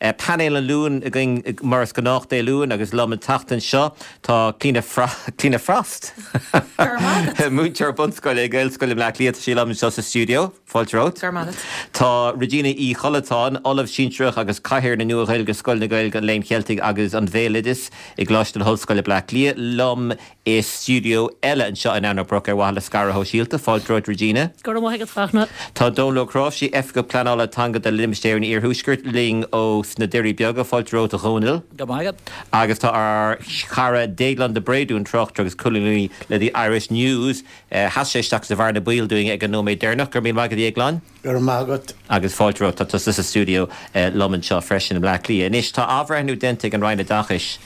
Painéal an Luain againn mar is gnách Dé Luain agus liom an tseachtain seo tá Clíona Clíona Frost, múinteoir bunscoile i Gaelscoil i mBleá Cliath, tá sí liom anseo sa stiúideo. Fáilte romhat. Go raibh maith agat. Tá Regina Uí Chollatáin, Ollamh Sinsearach agus Cathaoirleach na Nua-Ghaeilge, Scoil na Gaeilge, an Léinn Cheiltigh agus an Bhéaloidis i gColáiste na hOllscoile, Bleá Cliath, liom i stiúideo eile anseo in Eanach Broc ar mhaithe le scaradh shóisialta. Fáilte romhat Regina. Go raibh maith agat, Fachtna. Tá Dónal Ó Cnáimhsí, Oifigeach Pleanála Teanga do Limistéar an Iarthuaiscirt, linn ó sna Doirí Beaga. Fáilte romhat a Dhónaill. Go raibh maith agat. Agus tá ár chara Déaglán de Bréadún, tráchtaire agus colúnaí le The Irish News. Sheas sé isteach sa bhearna baoil dúinn ag an nóiméad deireanach. Go raibh míle maith agat, a Dhéagláin. Go raibh maith agat. Agus fáilte romhat. Tá tusa sa stiúideo liom anseo freisin i mBleá Cliath. Anois, tá athbhreithniú déanta ag an Roinn Oideachais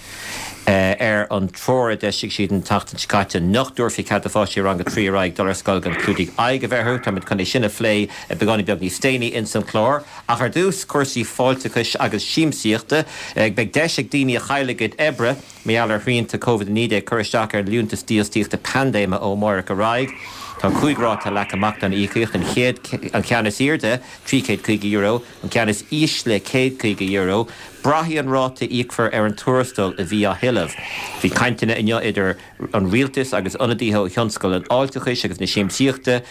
ar an treoir a d'eisigh siad an tseachtain seo caite nach dtabharfaí cead do pháistí rang 3 ar aghaidh dul ar scoil gan clúdaigh aghaidh a bheith orthu. Táimid chun é sin a phlé beagáinín beag níos déanaí ins an chlár. Ach ar dtús, cúrsaí fáilteachais agus siamsaíochta. Beidh deis ag daoine a chaill a gcuid oibre, Mar gheall ar shrianta Covid-19 cur isteach ar Liúntas Dífhostaíochta Paindéime ó amárach ar aghaidh. Tá 5 ráta leagtha amach don íocaíocht, an chéad, an ceann is airde, €350, an ceann is ísle €150. Braithfidh an ráta a íocfar ar an tuarastal a bhí á thuilleamh. Bhí cainteanna inniu idir an rialtas agus ionadaithe ó thionscal an fháilteachais agus na siamsaíochta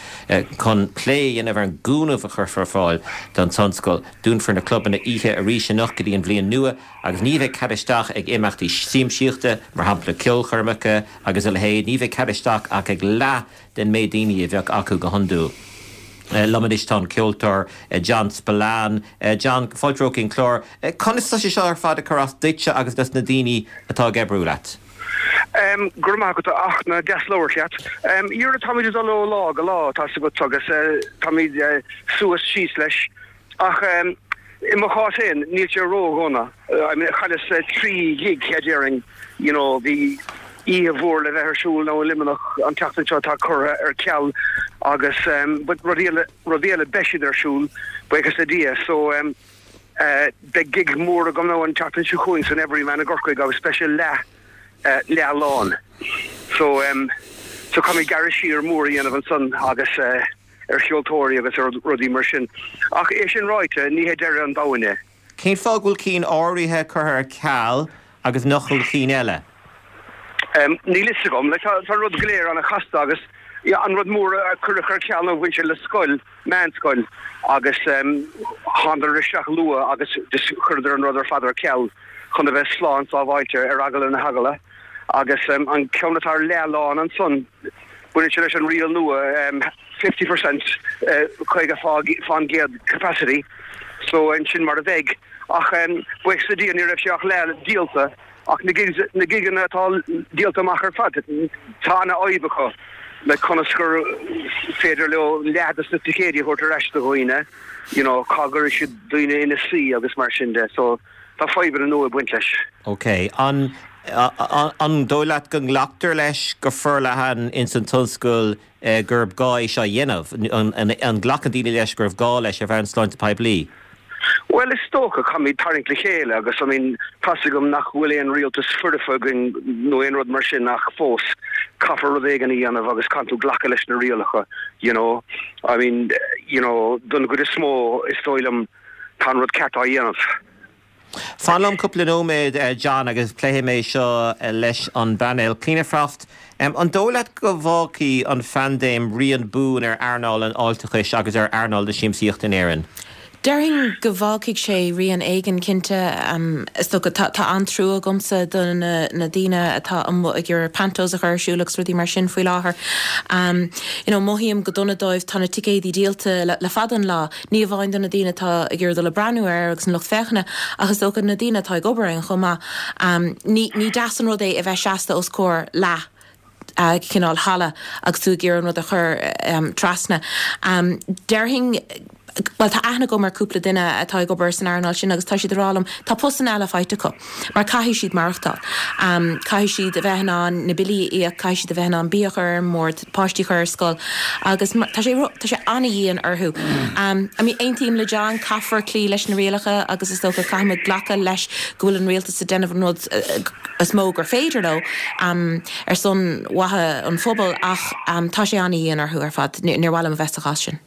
chun plé a dhéanamh ar an gcúnamh a chuirfear ar fáil don tionscal. Dúnfar na clubanna oíche arís anocht go dtí an bhliain nua. Agus ní bheidh cead isteach ag imeachtaí siamsaíochta, mar shampla ceolchoirmeacha agus a leithéid, ní bheidh cead isteach ach ag leath den méid daoine a bheadh acu go hiondúil. Liom anois tá an ceoltóir John Spillane. John, fáilte romhat chuig an chlár. Conas tá sé seo ar fad ag cur as duitse agus dos na daoine atá ag oibriú leat? Go raibh maith agat, a Fhachtna, deas labhairt leat. Dhera, táimid ag dul ó lá go lá, tá's agat, agus táimid suas síos leis. Ach i mo chás féin, níl sé ró-dhona. I mean, chailleas 3 ghig, déarfainn, you know, bhí oíche mhór le bheith ar siúl now i Luimneach an tseachtain seo atá curtha ar ceal agus but rudaí eile, rudaí eile, beidh siad ar siúl, buíochas le Dia. So beidh gig mór agam now an tseachtain seo chugainn san Everyman i gCorcaigh agus beidh sé leath, leath lán. So so caithfimid gearradh siar mór a dhéanamh ansan agus. ar cheoltóirí agus ar rudaí mar sin. Ach é sin ráite, ní hé deireadh an domhain é. Cén fáth go bhfuil cinn áirithe curtha ar ceal agus nach bhfuil cinn eile? Níl fhios agam. Like, tá an rud go léir an-chasta agus an rud mór a cuireadh ar ceal ná bhain sé le scoil, meánscoil, agus thánadar isteach luath agus just chuireadar an rud ar fad ar ceal chun a bheith slán sábháilte ar eagla na heagla. Agus an ceann atá ar leath lán ansan, Baineann sé leis an riail nua 50%, 50% capacity, so sin mar a bheidh. Ach buíochas le Dia ní raibh sé ach leath díolta ach na gigs, na gigeanna atá díolta amach ar fad, tá ana-fhadhb acu le conas gur féidir leo leath de na ticéidí a thabhairt ar ais do dhaoine, you know, cá gcuirfidh siad daoine ina suí agus mar sin de. So tá fadhbanna nua ag baint leis. Ok. An An dóigh leat go nglactar leis go forleathan ins an tionscal gurb gá é seo a dhéanamh? An nglacann daoine leis gurbh gá leis ar bhonn sláinte poiblí? Bhuel, is dócha, caithfimid tarraingt le chéile agus, I mean, tá's agam nach bhfuil aon rialtas foirfe againn nó aon rud mar sin ach fós, caithfear rud éigin a dhéanamh agus caithfidh tú glacadh leis na rialacha, you know. I mean, you know, don gcuid is mó, is dóigh liom, tá an rud ceart á dhéanamh. Fan liom cúpla nóiméad, John, agus pléifidh mé seo leis an bpainéal. Clíona Frost, an dóigh leat go bhfágfaidh an phaindéim rian buan ar earnáil an fháilteachais agus ar earnáil na siamsaíochta in Éirinn? Déarfainn go bhfágfaidh sé rian éigin, cinnte. Is dócha, tá an-trua agamsa do na daoine atá amuigh ag iarraidh pantos a chur ar siúl agus rudaí mar sin faoi láthair. You know, mothaím go dona dóibh, tá na ticéadaí díolta le fada an lá. Ní amháin do na daoine atá ag iarraidh dul ag breathnú air agus an lucht féachana, ach is dócha na daoine atá ag obair ann chomh maith. Ní ní deas an rud é a bheith seasta os comhair leath cineál halla agus tú ag iarraidh an rud a chur trasna. Déarfainn, bhuel tá aithne agam ar cúpla duine atá ag obair san earnáil sin agus tá siad ag rá liom tá postanna eile faighte acu mar caithfidh siad maireachtáil. Caithfidh siad a bheith in ann na billí a íoc, caithfidh siad a bheith in ann bia a chur ar an mbord, páistí a chur ar scoil agus tá sé tá sé an-dhian orthu. I mean aontaím le John, caithfear cloí leis na rialacha agus is dócha caithfimid glacadh leis go bhfuil an rialtas ag déanamh an rud is mó gur féidir leo ar son mhaithe an phobail ach tá sé an-dhian orthu ar fad. Níor mhaith liom a bheith sa chás sin.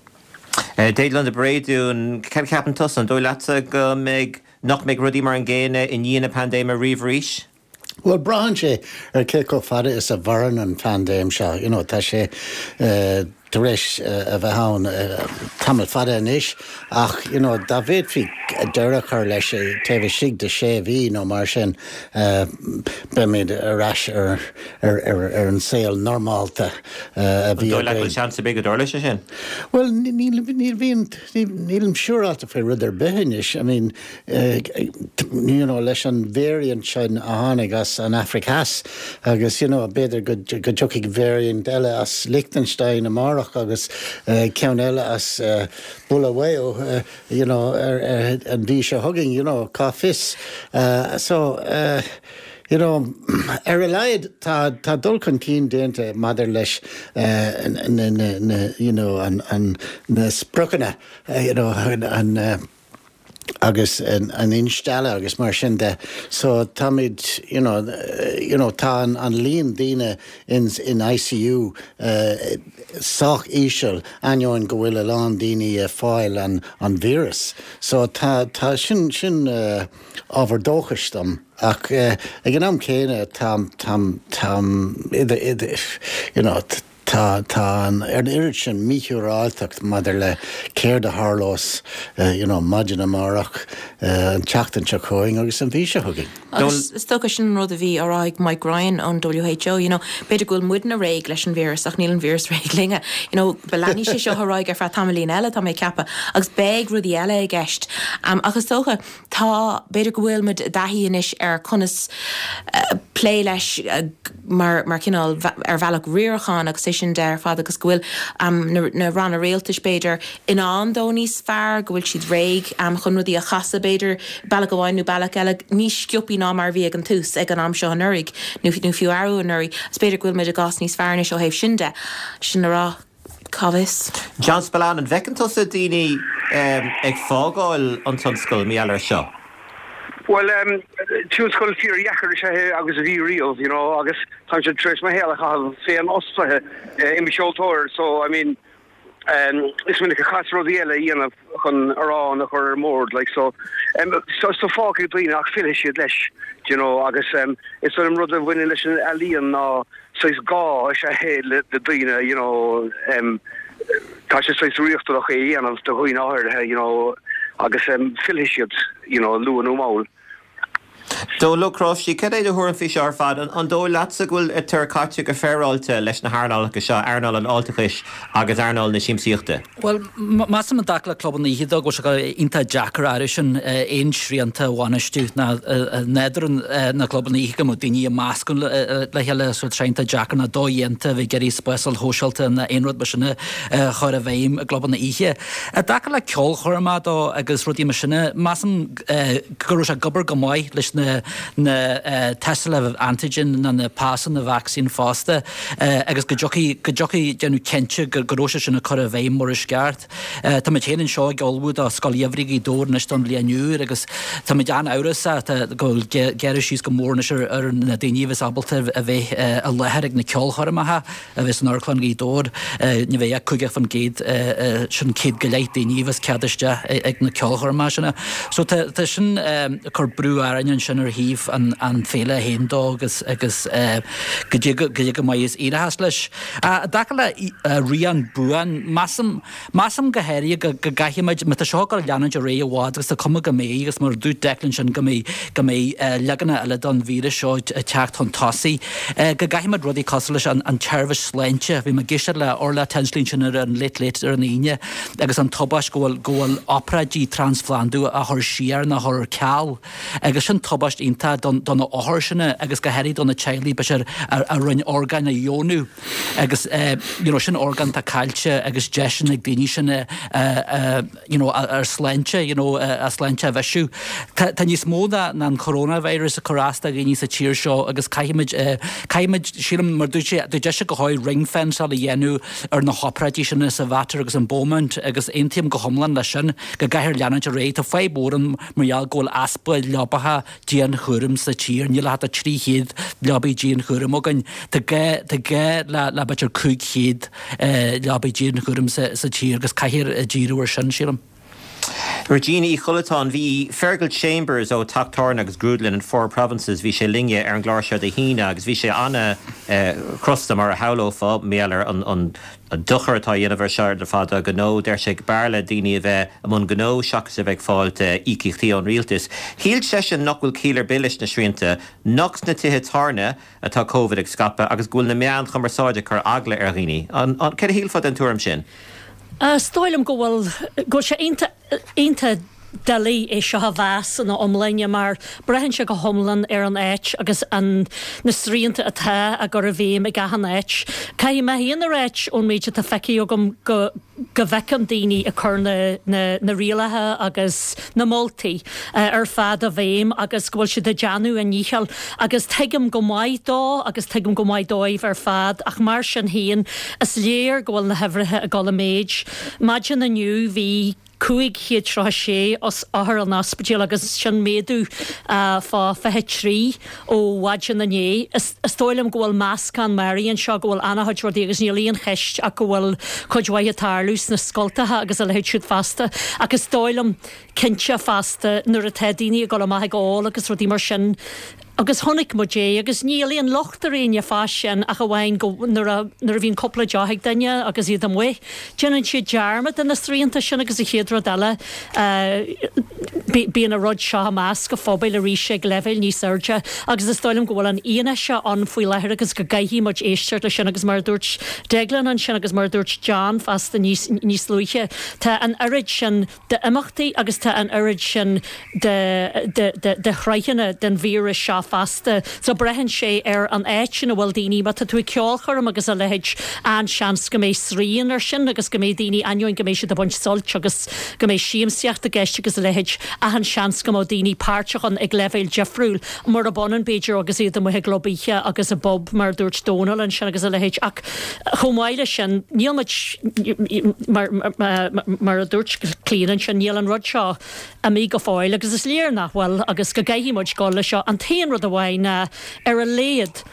Déaglán de Bréadún, cad a cheapann tusa? An dóigh leatsa go mbeidh. nach mbeidh rudaí mar an gcéanna i ndiaidh na paindéime riamh arís? Bhuel, braitheann sé ar cé chomh fada is a mhaireann an phaindéim seo. You know, tá sé tar éis a bheith ann tamall fada anois ach, you know, dá bhféadfaí deireadh a chur leis taobh istigh de sé mhí nó mar sin, beimid ar ais ar ar an saol normálta a bhí againn. An dóigh leat go bhfuil seans ar bith go dtarlóidh sé sin? Bhuel, níl, níl, bhíonn, nílim siúráilte faoi rud ar bith anois. I mean, you know, leis an variant sin a tháinig as an Afraic Theas agus, you know, b'fhéidir go dtiocfaidh variant eile as Liechtenstein amárach agus ceann eile as Bulawayo, you know, an mhí seo chugainn, you know, cá fios. So, you know, ar a laghad tá, tá dul chun cinn déanta maidir leis na, na, na, you know, an, an, na spriocanna, you know, an, agus an instealladh agus mar sin de. So táimid, you know, you know, tá an, an líon daoine in, in ICU sách íseal ainneoin go bhfuil a lán daoine ag fáil an, an víreas. So tá, tá, sin, sin ábhar dóchais dom. Ach ag an am céanna tá, tá, táim idir, idir, you know, Tá, tá an oiread sin míshiúráilteacht maidir le céard a tharlós, you know, maidin amárach, an tseachtain seo chugainn agus an mhí seo chugainn. Agus is dócha sin an rud a bhí á rá ag Mike Ryan ón WHO, you know, b'fhéidir go bhfuil muidne réidh leis an víreas ach níl an víreas réidh linne. You know, leanfaidh sé seo ar aghaidh ar feadh tamaillín eile, tá mé ag ceapadh, agus beidh rudaí eile i gceist. Ach is dócha, Tá, b'fhéidir go bhfuil muid i dtaithí anois ar conas plé leis mar mar chineál ar bhealach riaracháin agus é sin de ar fad agus go bhfuil na ranna rialtais b'fhéidir in ann dó níos fearr, go bhfuil siad réidh chun rudaí a chasadh b'fhéidir bealach amháin nó bealach eile níos sciopaí ná mar a bhí ag an tús ag an am seo anuraidh nó fiú arú anuraidh. Is b'fhéidir go bhfuil muid i gcás níos fearr anois ó thaobh sin de. Sin le rá. Cá bhfios? John Spillane, an bhfeiceann tusa daoine ag fágáil an tionscail mar gheall air seo? Bhuel, tionscal fíordheacair is ea é agus a bhí riamh, you know, agus táimse tar éis mo shaol a chaitheamh féinfhostaithe i mo cheoltóir, so, I mean, is minic a chaitheas rudaí eile a dhéanamh chun arán a chur ar an mbord, like, so, so, so fágfaidh daoine ach fillfidh siad leis, do you know, agus is dóigh liom rud a bhaineann leis an ealaíon ná saghas gá is ea é le daoine, you know, tá sé saghas riachtanach é a dhéanamh do dhaoine áirithe, you know, agus fillfidh siad, you know, luath nó mall. Dónall Ó Cnáimhsí, cad é do thuairim faoi seo ar fad? An dóigh leatsa go bhfuil tar caite go féaráilte leis na hearnálacha seo, earnáil an fháilteachais agus earnáil na siamsaíochta? Bhuel, measaim i dtaca le clubanna oíche dó go bhfuil sé iontach deacair air sin aon srianta a bhainistiú ná nádúr na gclubanna oíche go mbeadh daoine ag meascadh le chéile so tá sé iontach deacair ná dodhéanta a bheith ag iarraidh spásáil shóisialta ná aon rud mar sin a chur i bhfeidhm i gclubanna oíche. I dtaca le ceolchoirmeacha dó agus rudaí mar sin, measaim go raibh sé ag obair go maith leis na na tástálacha antigen ná na pasanna vacsaín fosta agus go dtiocfaidh go dtiocfaidh déanamh cinnte go go raibh sé sin á cur i bhfeidhm mar is ceart. Táimid féin anseo ag ullmhú do Scoil Gheimhridh Ghaoth Dobhair anois don bhliain úr agus táimid an-amhrasach go bhfuil gearradh síos go mór anois ar ar na daoine a bheas ábalta a bheith i láthair ag na ceolchoirmeacha. a bheas in Amharclann Ghaoth Dobhair, ní bheidh ach 50%, sin 100 go leith daoine a bheas cead isteach ag na ceolchoirmeacha sin. So tá tá sin ag cur brú orainn ansin ar thaobh an an féile féin dó agus agus goidé goidé go maith is éireochas leis. I dtaca le rian buan, measaim Measaim go háirithe go gcaithfimid, má tá seo ag dul a leanúint ar aghaidh i bhfad, agus tá cuma go mbeidh, agus mar a dúirt Declan ansin go mbeidh, go mbeidh leaganacha eile den víreas seo ag teacht chun tosaigh, go gcaithfimid rudaí cosúil leis an tseirbhís sláinte, bhí mé ag éisteacht le Orla Tinsley ansin ar an Late Late ar an Aoine agus an tubaist go bhfuil, go bhfuil obráidí trasphlandú á chur siar nó á chur ar ceal agus sin tubaist iontach don, do na hothair sin agus go háirithe do na teaghlaigh b'fhéidir a, a rinne orgáin a dheonú. Agus you know sin orgán atá caillte agus deiseanna ag daoine sin a you know ar sláinte you know a sláinte a bhisiú. Tá tá níos mó ná ná an coronavirus ag cur as do dhaoine sa tír seo agus caithfimid caithfimid sílim mar dúirt sé dúirt sé go háirithe ring fenceáil a dhéanamh ar na hobráidí sin sa Mhater agus in Beaumont agus aontaím go hiomlán leis sin go gcaithfear leanúint ar aghaidh. Tá fadhb mhór ann mar gheall go bhfuil easpa leapacha dianchúraim sa tír. Níl ach 300 leabaidh dianchúraim againn. Tá gá, tá gá le, le b'fhéidir 500 leabaidh dianchúraim sa, sa tír agus caithfear díriú ar sin, sílim. Regina Uí Chollatáin, Bhí Fergal Chambers ó Teach Tábhairne agus Grúdlann an Four Provinces, bhí sé linne ar an gclár seo Dé hAoine agus bhí sé an-chrosta mar a shamhlófá, mar gheall ar an dochar atá á dhéanamh air seo ar fad do ghnó. Deir sé b'fhearr le daoine a bheith i mbun gnó seachas a bheith ag fáilt íocaíochtaí ón rialtas. Shíl seisean nach bhfuil ciall ar bith leis na srianta, nach sna tithe tábhairne atá Covid ag scaipeadh agus go bhfuil na meáin chumarsáide ag cur eagla ar dhaoine. Céard a shílfeá den tuairim sin? Is dóigh liom go bhfuil, go bhfuil sé iontach, iontach doiligh é seo a mheas ina iomláine mar braitheann sé go hiomlán ar an áit agus an, na srianta atá á gcur i bhfeidhm ag achan áit. Caithfidh mé féin a ráit ón méid atá feicthe agam go, go bhfeicim daoine ag cur na, na, na rialacha agus na moltaí ar fad i bhfeidhm agus go bhfuil siad ag déanamh a ndícheall agus tuigim go maith dó agus tuigim go maith dóibh ar fad ach mar sin féin is léir go bhfuil na huimhreacha ag dul i méid. Maidin inniu bhí 536 othar in ospidéal agus sin méadú fá 23 ó mhaidin inné. Is dóigh liom go bhfuil meascán mearaí anseo, go bhfuil an-chuid rudaí agus níl aon cheist ach go bhfuil cuid mhaith ag tarlú sna scoltacha agus a leithéid siúd fosta. Ach is dóigh liom cinnte fosta nuair atá daoine ag dul amach ag ól agus rudaí mar sin, Agus chonaic muid é, agus níl aon locht ar éinne fá sin ach amháin go, nuair a, nuair a bhíonn cúpla deoch ag duine agus iad amuigh, déanann siad dearmad de na srianta sin agus an chéad rud eile, bíonn an rud seo i measc an phobail arís ag leibhéil níos airde agus is dóigh liom go bhfuil an fhianaise ann faoi láthair agus go gcaithfidh muid éisteacht leis sin agus mar a dúirt Deaglán ansin agus mar a dúirt John fosta níos, níos luaithe, tá an oiread sin d'imeachtaí agus tá an oiread sin de shruthanna den víreas seo fosta. So braitheann sé ar an áit ina bhfuil daoine, má tá tú ag ceolchoirm agus a leithéid, an-seans go mbeidh srian air sin agus go mbeidh daoine, ainneoin go mbeidh siad ag baint suilt agus go mbeidh siamsaíocht i gceist agus a leithéid, achan seans go mbeadh daoine páirteach ann ag leibhéal difriúil, murab ionann b'fhéidir agus iad amuigh i gclub oíche agus i bpub mar a dúirt Dónal ansin agus a leithéid. Ach chomh maith leis sin, níl muid, mar a dúirt Clíona ansin, níl an rud seo imithe go fóill agus is léir nach bhfuil agus go gcaithfidh muid dul leis seo. An t-aon rud amháin ná, ar a laghad,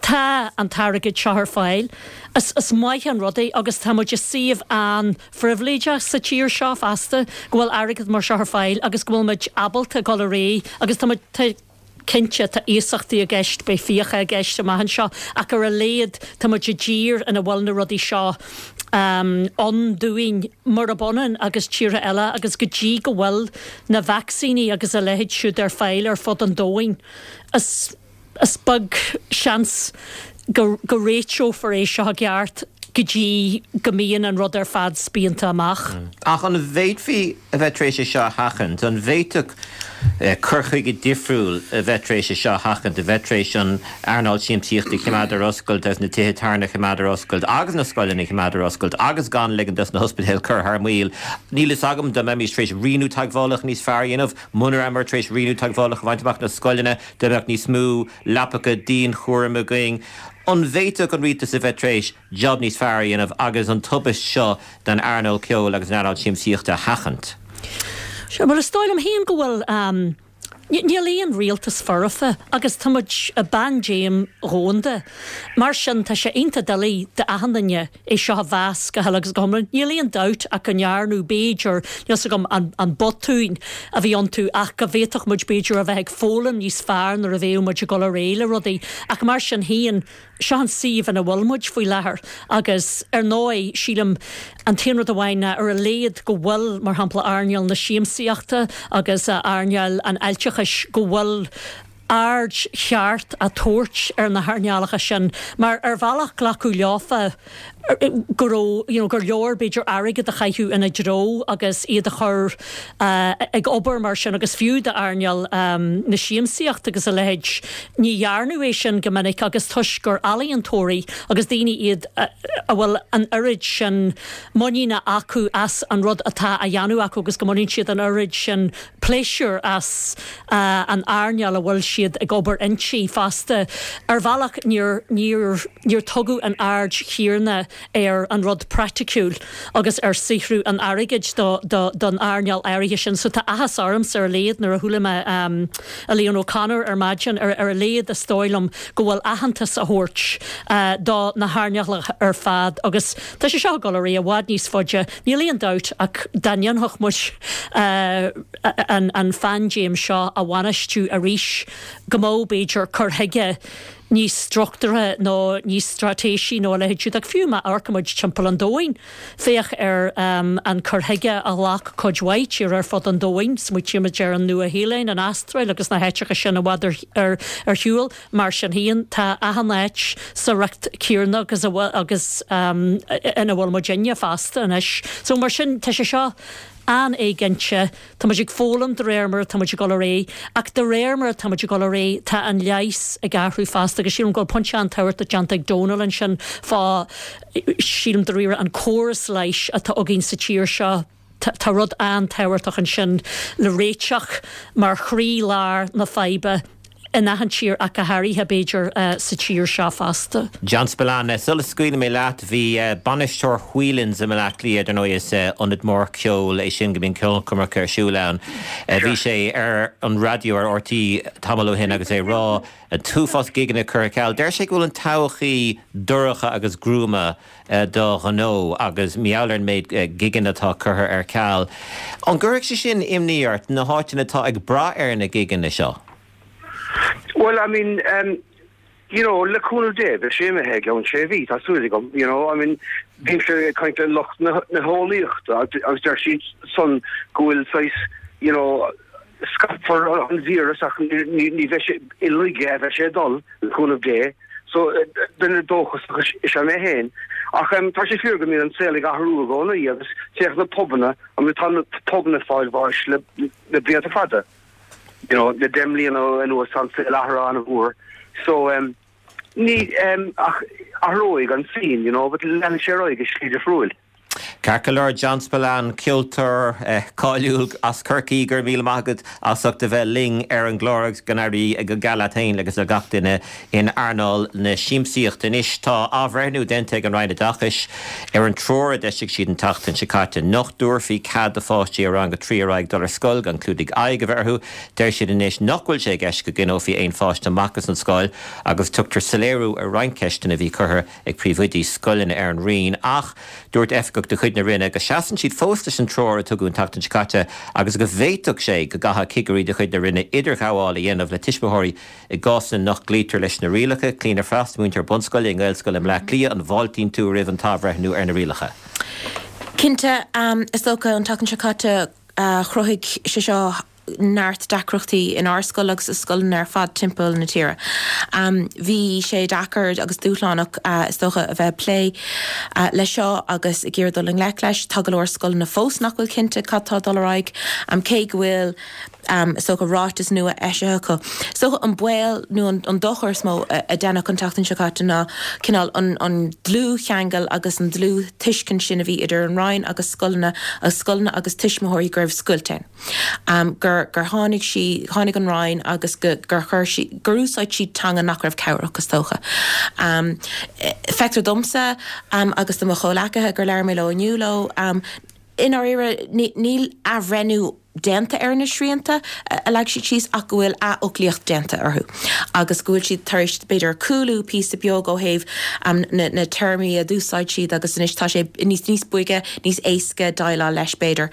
tá an t-airgead seo ar fáil. Is maith an rud é agus tá muid i suíomh an-phribhléideach sa tír seo fosta go bhfuil airgead mar seo ar fáil agus go bhfuil muid ábalta dul ar aghaidh agus tá muid, tá, Cinnte, tá iasachtaí i gceist, beidh fiacha i gceist amach anseo, ach ar a laghad tá muid i dtír ina bhfuil na rudaí seo ann dúinn, murab ionann agus tíortha eile, agus go dtí go bhfuil na vacsaíní agus a leithéid siúd ar fáil ar fud an domhain, is is beag seans go go réiteofar é seo i gceart go dtí go mbíonn an rud ar fad spíonta amach. Ach an bhféadfaí a bheith tar éis é seo a sheachaint? An bhféadfadh cur chuige difriúil a bheith tar éis é seo a sheachaint, a bheith tar éis an earnáil siamsaíochta a choimeád ar oscailt agus na tithe tábhairne a choimeád ar oscailt agus na scoileanna a choimeád ar oscailt agus gan ligean dos na hospidéil cur thar maoil? Níl fhios agam dá mbeimis tar éis rianú teagmhálacha níos fearr a dhéanamh, muna rabhamar tar éis rianú teagmhálacha a bhaint amach na scoileanna, dá mbeadh níos mó leapacha dianchúraim againn. An bhféadfadh an rialtas a bheith tar éis jab níos fearr a dhéanamh agus an tubaist seo don earnáil ceoil agus an earnáil siamsaíochta a sheachaint? Sea, bhuel is dóigh liom féin go bhfuil, níl aon rialtas foirfe agus tá muid i bpaindéim dhomhanda. Mar sin tá sé iontach doiligh d'achan duine é seo a mheas go huile agus go hiomlán. Níl aon dabht ach go ndearnadh, b'fhéidir, níl 's agam an botúin a bhí iontu ach go bhféadfadh muid b'fhéidir a bheith ag foghlaim níos fearr nuair a bheadh muid ag dul ar aghaidh le rudaí. Ach mar sin féin, seo an suíomh ina bhfuil muid faoi láthair agus ar ndóigh, sílim, an t-aon rud amháin ná ar a laghad go bhfuil, mar shampla, earnáil na siamsaíochta agus earnáil an fháilteachais, go bhfuil aird cheart á tabhairt ar na hearnálacha sin mar ar bhealach glacadh leofa go raibh, you know, gur leor b'fhéidir airgead a chaitheamh ina dtreo agus iad a chur ag obair mar sin agus fiú d'earnáil na siamsaíochta agus a leithéid ní dhearnadh é sin go minic agus toisc gur ealaíontóirí agus daoine iad a bhfuil an oiread sin muiníne acu as an rud atá á dhéanamh acu agus go mbaineann siad an oiread sin pléisiúr as an earnáil a bhfuil siad ag obair inti fosta. Ar bhealach níor, níor, níor tugadh an aird chéanna. ar an rud praiticiúil agus ar saothrú an airgid do don earnáil áirithe sin. So tá áthas ormsa ar a laghad nuair a chuala mé Elaine O'Connor ar maidin, ar a laghad is dóigh liom go bhfuil aitheantas á thabhairt do na hearnálacha ar fad agus tá sé seo ag dul ar aghaidh i bhfad níos faide, níl aon dabht ach dá ndéanfadh muid an phaindéim seo a bhainistiú arís go mbeadh b'fhéidir cur chuige níos struchtúrtha nó níos straitéisí nó a leithéid siúd. Ach fiú má amharcaimid timpeall an domhain, féach ar an cur chuige a ghlac cuid mhaith tíortha ar fud an domhain, smaoitímid ar an Nua-Shéalainn, an Astráil agus na háiteacha sin i bhfad ar shiúl. Mar sin féin, tá achan áit sa riocht céanna agus agus ina bhfuil muidinne fosta anois. So mar sin, tá sé seo an-éiginnte. Tá muid ag foghlaim de réir mar atá muid ag dul ar aghaidh, ach de réir mar atá muid ag dul ar aghaidh, tá an leigheas ag athrú fosta agus sílim go bhfuil pointe an-tábhachtach déanta ag Dónal ansin fá, sílim dáiríre, an córas leighis atá againn sa tír seo. Tá rud an-tábhachtach ansin le réiteach mar chroí-lár na faidhbe. in achan tír ach go háirithe, b'fhéidir, sa tír seo fosta. John Spillane, sula scaoilfidh mé leat, bhí bainisteoir Whelan's i mBleá Cliath, dar ndóigh is ionad mór ceoil é sin go mbíonn ceolchoirmeacha ar siúl ann, bhí sé ar an raidió ar RTÉ tamall ó shin agus é ag rá an t-uafás gigeanna curtha ar ceal. Deir sé go bhfuil an todhchaí dorcha agus gruama do ghnó agus mar gheall ar an méid gigeanna atá curtha ar ceal. An gcuirfeadh sé sin imní ort, na háiteanna atá ag brath ar na gigeanna seo? Bhuel, I mean, you know, le cúnamh Dé, beidh sé imithe i gceann sé mhí, tá súil agam, you know, I mean, bímse ag caint le lucht na heolaíochta agus deir siad san go bhfuil saghas, you know, scaipfear an víreas ach ní bheidh sé i laige a bheidh sé ag dul, le cúnamh Dé. So, duine dóchasach is ea mé féin. Ach tá sé fíor go mbíonn an saol ag athrú i gcónaí agus féach na pubanna, I mean tá na pubanna ag fáil bháis le blianta fada. You know, le 10 mbliana anuas tá an saol athraithe an-mhór. So, ní, ach athróidh an scene, you know, but leanfaidh sé ar aghaidh i slí difriúil. Ceart go leor, John Spillane, ceoltóir cáiliúil as Corcaigh, go raibh míle maith agat as ucht a bheith linn ar an gclár agus go n-éirí go geal leat féin agus le gach duine in earnáil na siamsaíochta. Anois tá athbhreithniú déanta ag an Roinn Oideachais ar an treoir a d'eisigh siad an tseachtain seo caite nach dtabharfaí cead do pháistí ó rang a 3 ar aghaidh dul ar scoil gan clúdaigh aghaidh a bheith orthu. Deir siad anois nach bhfuil sé i gceist go gcoinneofaí aon pháiste amach as an scoil agus tugtar soiléiriú ar roinnt ceisteanna a bhí curtha ag príomhoidí scoileanna ar an Roinn ach dúirt oifigeach de chuid na Roinne go seasann siad fós leis an treoir a tugadh an tseachtain seo caite agus go bhféadfadh sé go gcaithfeadh cigirí de chuid na Roinne idirghabháil a dhéanamh le tuismitheoirí i gcásanna nach gcloítear leis na rialacha. Clíona Frost, múinteoir bunscoile i nGaelscoil i mBleá Cliath, an bhfáiltíonn tú roimh an t-athbhreithniú ar na rialacha? Cinnte, is dócha an tseachtain seo caite chruthaigh sé seo neart deacrachtaí inár scoil agus i scoileanna ar fad timpeall na tíre. Bhí sé deacair agus dúshlánach, is dócha, a bheith ag plé leis seo agus ag iarraidh dul i ngleic leis. Tá go leor scoileanna fós nach bhfuil cinnte cad tá ag dul ar aghaidh, cé go bhfuil, is dócha, ráiteas nua eisithe acu. Is dócha an baol nó an dochar is mó a deineadh an tseachtain seo caite ná cineál an dlúthcheangal agus an dlúth-tuiscint sin a bhí idir an Roinn agus scoileanna agus scoileanna agus tuismitheoirí go raibh scoilt ann. gur gur tháinig sí, tháinig an Roinn agus go gur chuir sí, gur úsáid siad teanga nach raibh cabhrach, is dócha. Feictear domsa agus do mo chomhleacaithe gur labhair mé leo inniu leo, i ndáiríre níl athbhreithniú déanta ar na srianta a leag siad síos ach go bhfuil athfhoclaíocht déanta orthu agus go bhfuil siad tar éis b'fhéidir cúlú píosa beag ó thaobh na na téarmaí a d'úsáid siad agus anois tá sé níos níos boige, níos éasca déileáil leis, b'fhéidir.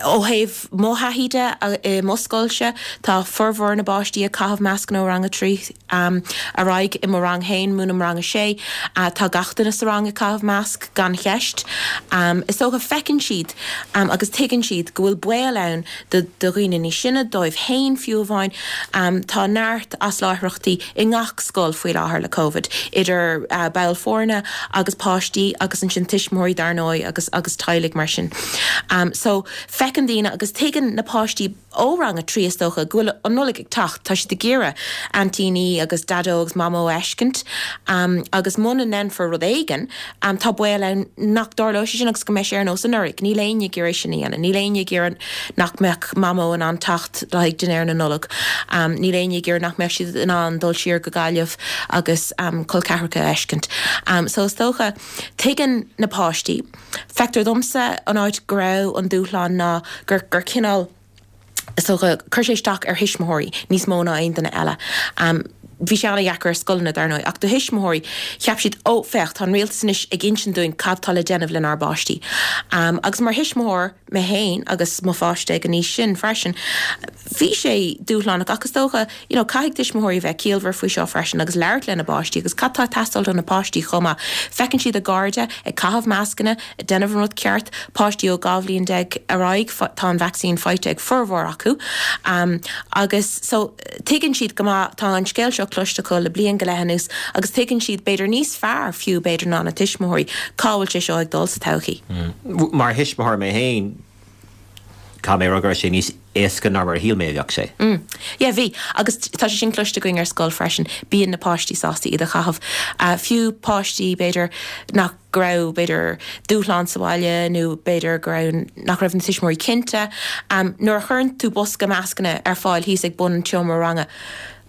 Ó thaobh mo thaithí de i mo scoilse, tá formhór na bpáistí ag caitheamh mascanna ó rang a 3 ar aghaidh. I mo rang féin, múinim rang a 6, tá gach duine sa rang ag caitheamh masc, gan cheist. Is dócha, feiceann siad agus tuigeann siad go bhfuil baol ann do dhaoine níos sine, dóibh féin fiú amháin. Tá neart asláithreachtaí i ngach scoil faoi láthair le Covid, idir baill foirne agus páistí agus ansin tuismitheoirí dar ndóigh agus agus teaghlaigh mar sin. So feiceann daoine agus tuigeann na páistí. Ó rang a 3 is dócha go bhfuil an Nollaig ag teacht, tá siad ag iarraidh aintíní agus daideo agus mamó a fheiscint agus muna ndéanfar rud éigin tá baol ann nach dtarlóidh sé sin agus go mbeidh sé ar nós anuraidh. Níl éinne ag iarraidh sin a dhéanamh. Níl éinne ag iarraidh nach mbeadh mamó in ann teacht le haghaidh dinnéar na Nollag. Níl éinne ag iarraidh nach mbeadh siad in ann dul siar go Gaillimh agus col ceathracha a fheiscint. So is dócha, tuigeann na páistí. Feictear domsa an áit go raibh an dúshlán ná gur gur cineál, is dócha, chuir sé isteach ar thuismitheoirí níos mó ná aon duine eile. Bhí sé an-dheacair ar scoileanna, dar ndóigh, ach do thuismitheoirí, cheap siad, 'Ó, féach, tá an rialtas anois ag insint dúinn cad tá le déanamh lenár bpáistí. Agus mar thuismitheoir mé féin agus mo pháiste ag an aois sin freisin, bhí sé dúshlánach ach is dócha, you know, caithfidh tuismitheoirí a bheith ciallmhar faoi seo freisin agus labhairt lena bpáistí agus cad tá ag teastáil do na páistí chomh maith. Feiceann siad a gcairde ag caitheamh mascanna, ag déanamh an rud ceart, páistí ó 12 bhliain ar aghaidh, tá an vacsaín faighte ag formhór acu agus so tuigeann siad go maith, tá an scéal seo cloiste acu le bliain go leith anuas agus tuigeann siad b'fhéidir níos fearr fiú b'fhéidir ná na tuismitheoirí cá bhfuil sé seo ag dul sa todhchaí. Mar thuismitheoir mé féin, Caithfidh mé a rá go raibh sé níos éasca ná mar a shíl mé a bheadh sé. Mm. Yeah, bhí. Agus tá sé sin cloiste againn ar scoil freisin. Bíonn na páistí sásta iad a chaitheamh. Fiú páistí, b'fhéidir, nach, go raibh, b'fhéidir, dúshlán sa bhaile nó b'fhéidir go raibh, nach raibh na tuismitheoirí cinnte. Nuair a chuireann tú bosca mascanna ar fáil thíos ag bun an tseomra ranga,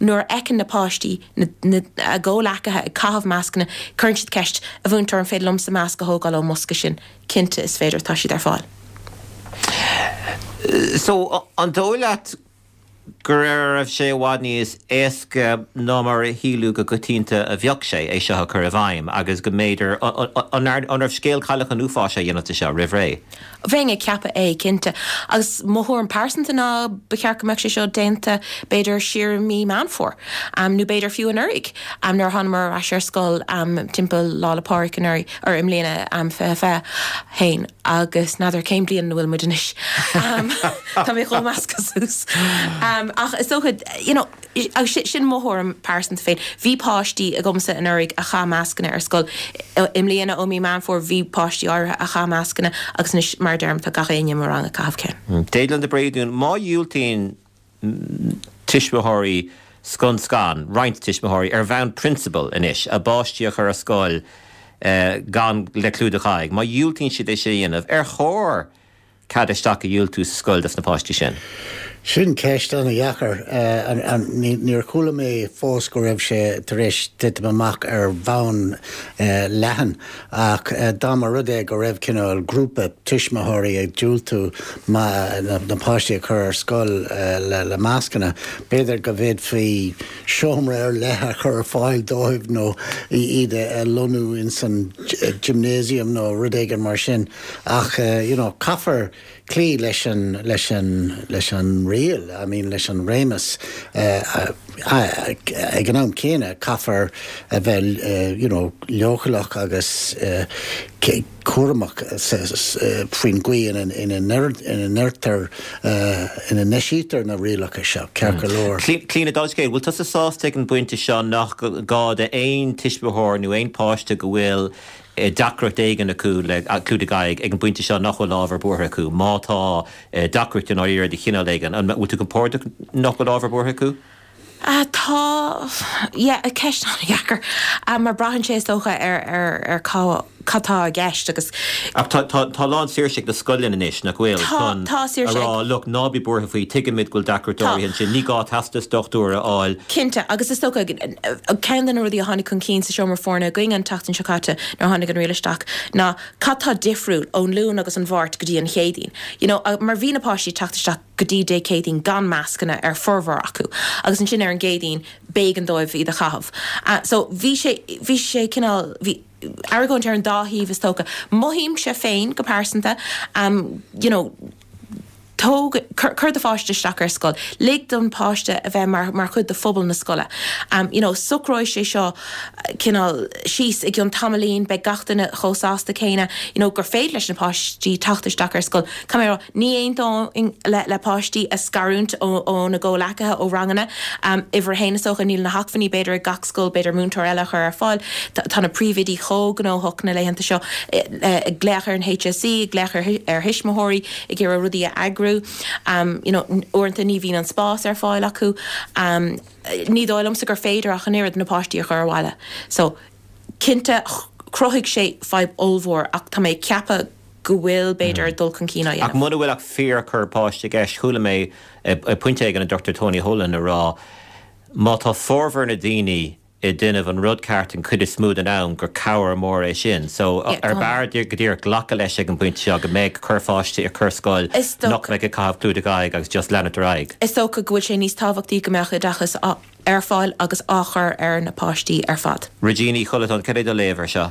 nuair a fheiceann na páistí na, na, a gcomhleacaithe ag caitheamh mascanna, cuireann siad ceist, 'A mhúinteoir, an féidir liomsa masc a thógáil ón mbosca sin? Cinnte, is féidir, tá siad ar fáil. So, an dóigh leat go raibh sé i bhfad níos éasca ná mar a shíleadh go coitianta a bheadh sé, é seo a chur i bhfeidhm agus go mb'fhéidir, an raibh scéal Cailleach an Uafáis á dhéanamh de seo roimh ré? Bheinn ag ceapadh é, cinnte. Agus mo thuairim pearsanta ná ba cheart go mbeadh sé seo déanta b'fhéidir siar i mí Meán Fómhair, nó b'fhéidir fiú anuraidh, nuair a thánamar ar ais ar scoil timpeall Lá 'le Pádraig anuraidh. or i mbliana, 2021 agus n'fheadar cén bliain ina bhfuil muid anois. Tá mé chomh measctha suas. Ach is dócha, you know, agus sin mo thuairim pearsanta féin, bhí páistí agamsa anuraidh a chaith mascanna ar scoil. I mbliana ó mí Meán Fómhair bhí páistí áirithe a chaith mascanna agus anois mar a deirim tá gach éinne i mo rang ag caitheamh ceann. Deaglan de Bréadún, má dhiúltaíonn tuismitheoirí scun scan, roinnt tuismitheoirí, ar bhonn prionsabail anois, a bpáistí a chur ar scoil gan le clúdach aghaidh. Má dhiúltaíonn siad é sin a dhéanamh, ar chóir cead isteach a dhiúltú sa scoil dos na páistí sin? Sin ceist an-dheacair. Níor chuala mé fós go raibh sé tar éis titim amach ar bhonn leathan. Ach dá mba rud é go raibh cineál grúpa tuismitheoirí ag diúltú na páistí a chur ar scoil le mascanna, b'fhéidir go bhféadfaí seomra ar leith a chur ar fáil dóibh nó iad a lonnú ins an gymnasium nó rud éigin mar sin. Ach you know caithfear cloí leis an, leis an, leis an riail, I mean leis an réimeas. Ag an am céanna caithfear a bheith you know leochaileach agus cúramach faoin gcaoi ina ndeirtear, ina n-eisítear na rialacha seo, ceart go leor. Clíona, dála an scéil, bhfuil tusa sásta ag an bpointe seo nach gá d'aon tuismitheoir nó aon pháiste go bhfuil deacracht éigin acu le clúdaigh aghaidh ag an bpointe seo nach bhfuil ábhar buartha acu, má tá deacracht i ndáiríre de chineál éigin. An bhfuil tú compordach nach bhfuil ábhar buartha acu? Tá, yeah, ceist an-dheacair, mar braitheann sé is dócha ar, ar, ar cá, cad tá i gceist agus. Ach tá, tá, tá lán saoirse ag na scoileanna anois, nach bhfuil, Tá, chun tá a saoirse rá, ag. look, ná bí buartha faoi, tuigimid go bhfuil deacracht Tá. áirithe ansin, ní gá teastas dochtúra a fháil. Cinnte, agus is dócha, ceann de na rudaí a tháinig chun cinn sa seomra foirne againn an tseachtain seo caite nuair a tháinig an riail isteach ná cad tá difriúil ón Luan agus an Mháirt go dtí an Chéadaoin. You know, mar bhí na páistí ag teacht isteach go dtí Dé Céadaoin gan mascanna ar formhór acu agus ansin ar an gCéadaoin b'éigean dóibh iad a chaitheamh. So bhí sé, bhí sé cineál, bhí argóint ar an dá thaobh is dócha. Mothaímse féin go pearsanta, you know, Tóg, cuir do pháiste isteach ar scoil. Lig don pháiste a bheith mar, mar chuid de phobal na scoile. You know, socróidh sé seo cineál síos i gcionn tamaillín, beidh gach duine chomh sásta céanna, you know, gur féidir leis na páistí teacht isteach ar scoil. Caithfidh mé a rá, ní aontóinn le, le páistí a scarúint ó, óna gcomhleacaithe ó ranganna. Uimhir a haon is dócha, níl na hacmhainní b'fhéidir ag gach scoil b'fhéidir múinteoir eile a chur ar fáil. Tá na príomhoidí chomh gnóthach na laethanta seo, ag glaoch ar an HSE, ag glaoch ar, ar thuismitheoirí, ag iarraidh rudaí a eagrú. eagrú. You know, uaireanta ní bhíonn an spás ar fáil acu. Ní dóigh liomsa gur féidir ach an oiread na páistí a chur abhaile. So, cinnte, chruthaigh sé fadhb ollmhór ach tá mé ag ceapadh go bhfuil, b'fhéidir, dul chun cinn á dhéanamh. Ach muna bhfuil ach fíorchorr páiste i gceist, chuala mé ag pointe éigin an Dr Tony Holohan ag rá má tá formhór na daoine ag déanamh an rud ceart an chuid is mó den am gur cabhair mór é sin. So ar b'fhearr go díreach glacadh leis ag an bpointe seo go mbeidh corrpháiste i corrscoil nach mbeidh ag caitheamh clúdach aghaidh agus just leanacht ar aghaidh. Is dócha go bhfuil sé níos tábhachtaí go mbeadh oideachas ar fáil agus á chur ar na páistí ar fad. Regina Uí Chollatáin, cad é do léamh ar seo?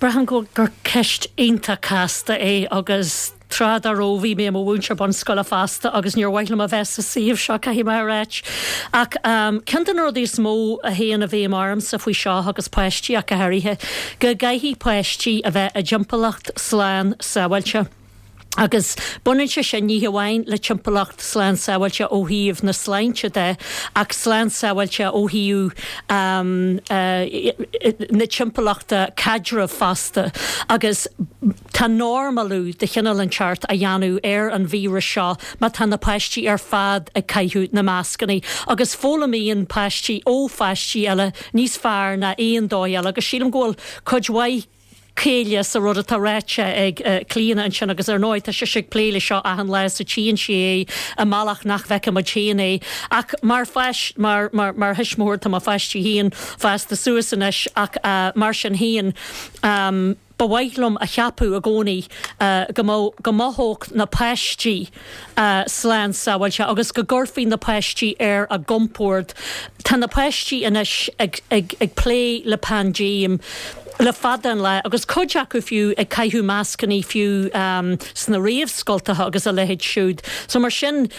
Braithim gur ceist iontach casta é agus tráth dá raibh bhí mé i mo mhúinteoir bunscoile fosta agus níor mhaith liom a bheith sa suíomh seo, caithfidh mé a ráit. Ach ceann de na rudaí is mó a théann i bhfeidhm ormsa faoi seo agus páistí ach go háirithe, go gcaithfidh páistí a bheith i dtimpeallacht slán sábháilte. Agus baineann sé sin ní hamháin le timpeallacht slán sábháilte ó thaobh na sláinte de, ach slán sábháilte ó thaobh na timpeallachta caidrimh fosta. Agus tá normalú de chineál inteacht á dhéanamh ar an víreas seo má tá na páistí ar fad ag caitheamh na mascanna. Agus foghlaimíonn páistí ó pháistí eile níos fearr ná aon dóigh eile. Agus sílim go bhfuil cuid mhaith céille sa rud atá ráite ag Clíona ansin agus ar ndóigh tá sise ag plé le seo achan lá so tchíonn sí é i mbealach nach bhfeiceann muid féin é ach mar pháis mar mar mar thuismitheoir tá mo pháistí féin fásta suas anois ach mar sin féin ba mhaith liom a cheapadh i gcónaí go mbeadh go mothódh na páistí slán sábháilte agus go gcuirfí na páistí ar a gcompord. Tá na páistí anois ag ag ag plé le paindéim le fada an lá agus cuid acu fiú ag caitheamh mascannaí fiú sna réamhscoltacha agus a leithéid siúd. So mar sin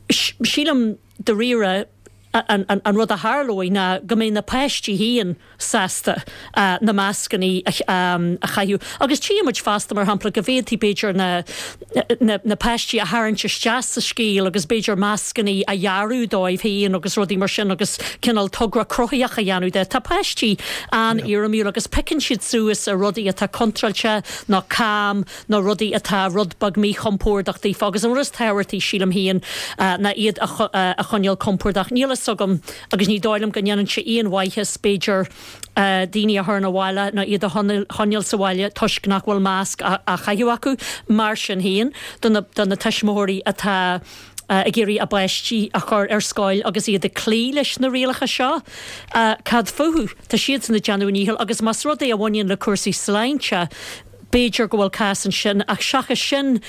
sílim dáiríre an an rud a tharlóidh ná go mbeidh na páistí féin sásta na mascannaí a chaitheamh. Agus tchíonn muid fosta, mar shampla, go bhféadfaí b'fhéidir na na páistí a tharraingt isteach sa scéal agus b'fhéidir mascannaí a dhearadh dóibh féin agus rudaí mar sin agus cineál togra cruthaitheach a dhéanamh de. Tá páistí an-éirimiúil agus piocann siad suas ar rudaí atá contráilte nó cam nó rudaí atá rud beag míchompordach daofa agus an rud is tábhachtaí, sílim féin, ná iad a choinneáil compordach. Níl a fhios agam agus ní dóigh liom go ndéanann sé aon mhaitheas, b'fhéidir, daoine a chur 'na bhaile nó iad a choinneáil sa bhaile toisc nach bhfuil masc á chaitheamh acu. Mar sin féin, do na do na tuismitheoirí atá ag iarraidh a bpáistí a chur ar scoil agus iad ag cloí leis na rialacha seo, cad fúthu? Tá siadsan ag déanamh a ndícheall agus más rud é a bhaineann le cúrsaí sláinte, B'fhéidir go bhfuil cás ansin, ach seachas sin,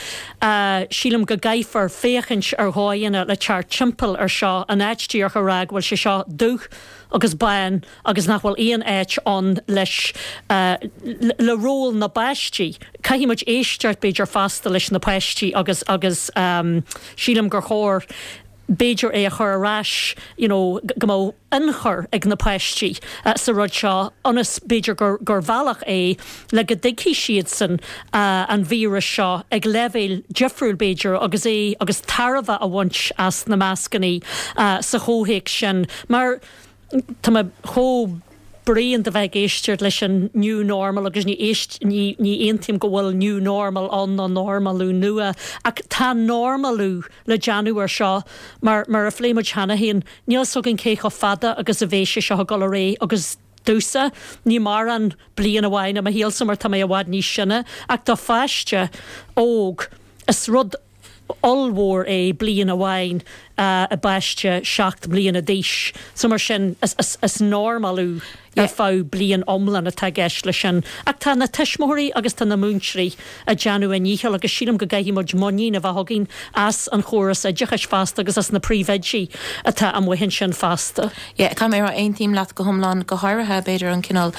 sílim go gcaithfear féachaint ar dhóigheanna le teacht timpeall ar seo, in áit díreach a rá go bhfuil sé seo dubh agus bán agus nach bhfuil aon áit ann leis, le ról na bpáistí. Caithfidh muid éisteacht, b'fhéidir, fosta leis na páistí agus, agus sílim gur chóir, b'fhéidir é a chur ar ais you know go mbeadh ionchur ag na páistí sa rud seo ionas b'fhéidir gur gur bhealach é le go dtuigfidh siadsan an víreas seo ag leibhéal difriúil b'fhéidir agus é agus tairbhe a bhaint as na mascannaí sa chomhthéacs sin mar Tá mé chomh bréan de bheith ag éisteacht leis an new normal agus ní éist, ní, ní aontaím go bhfuil new normal ann nó normalú nua ach tá normalú le déanamh ar seo mar, mar a phléigh muid cheana féin, níl 'fhios againn cé chomh fada agus a bheidh sé seo ag dul ar aghaidh agus domhsa, ní mórán bliain amháin i mo shaolsa mar tá mé i bhfad níos sine ach do pháiste óg is rud ollmhór é bliain amháin i bpáiste 7 mbliana d'aois. So mar sin, is normalú ar feadh bliain iomlán atá i gceist leis sin. Ach tá na tuismitheoirí agus tá na múinteoirí ag déanamh a ndícheall agus sílim go gcaithfidh muid muinín a bheith againn as an chóras oideachais fosta agus as na príomhoidí atá amuigh ansin fosta. Yeah, caithfidh mé a rá, aontaím leat go hiomlán, go háirithe, b'fhéidir, an cineál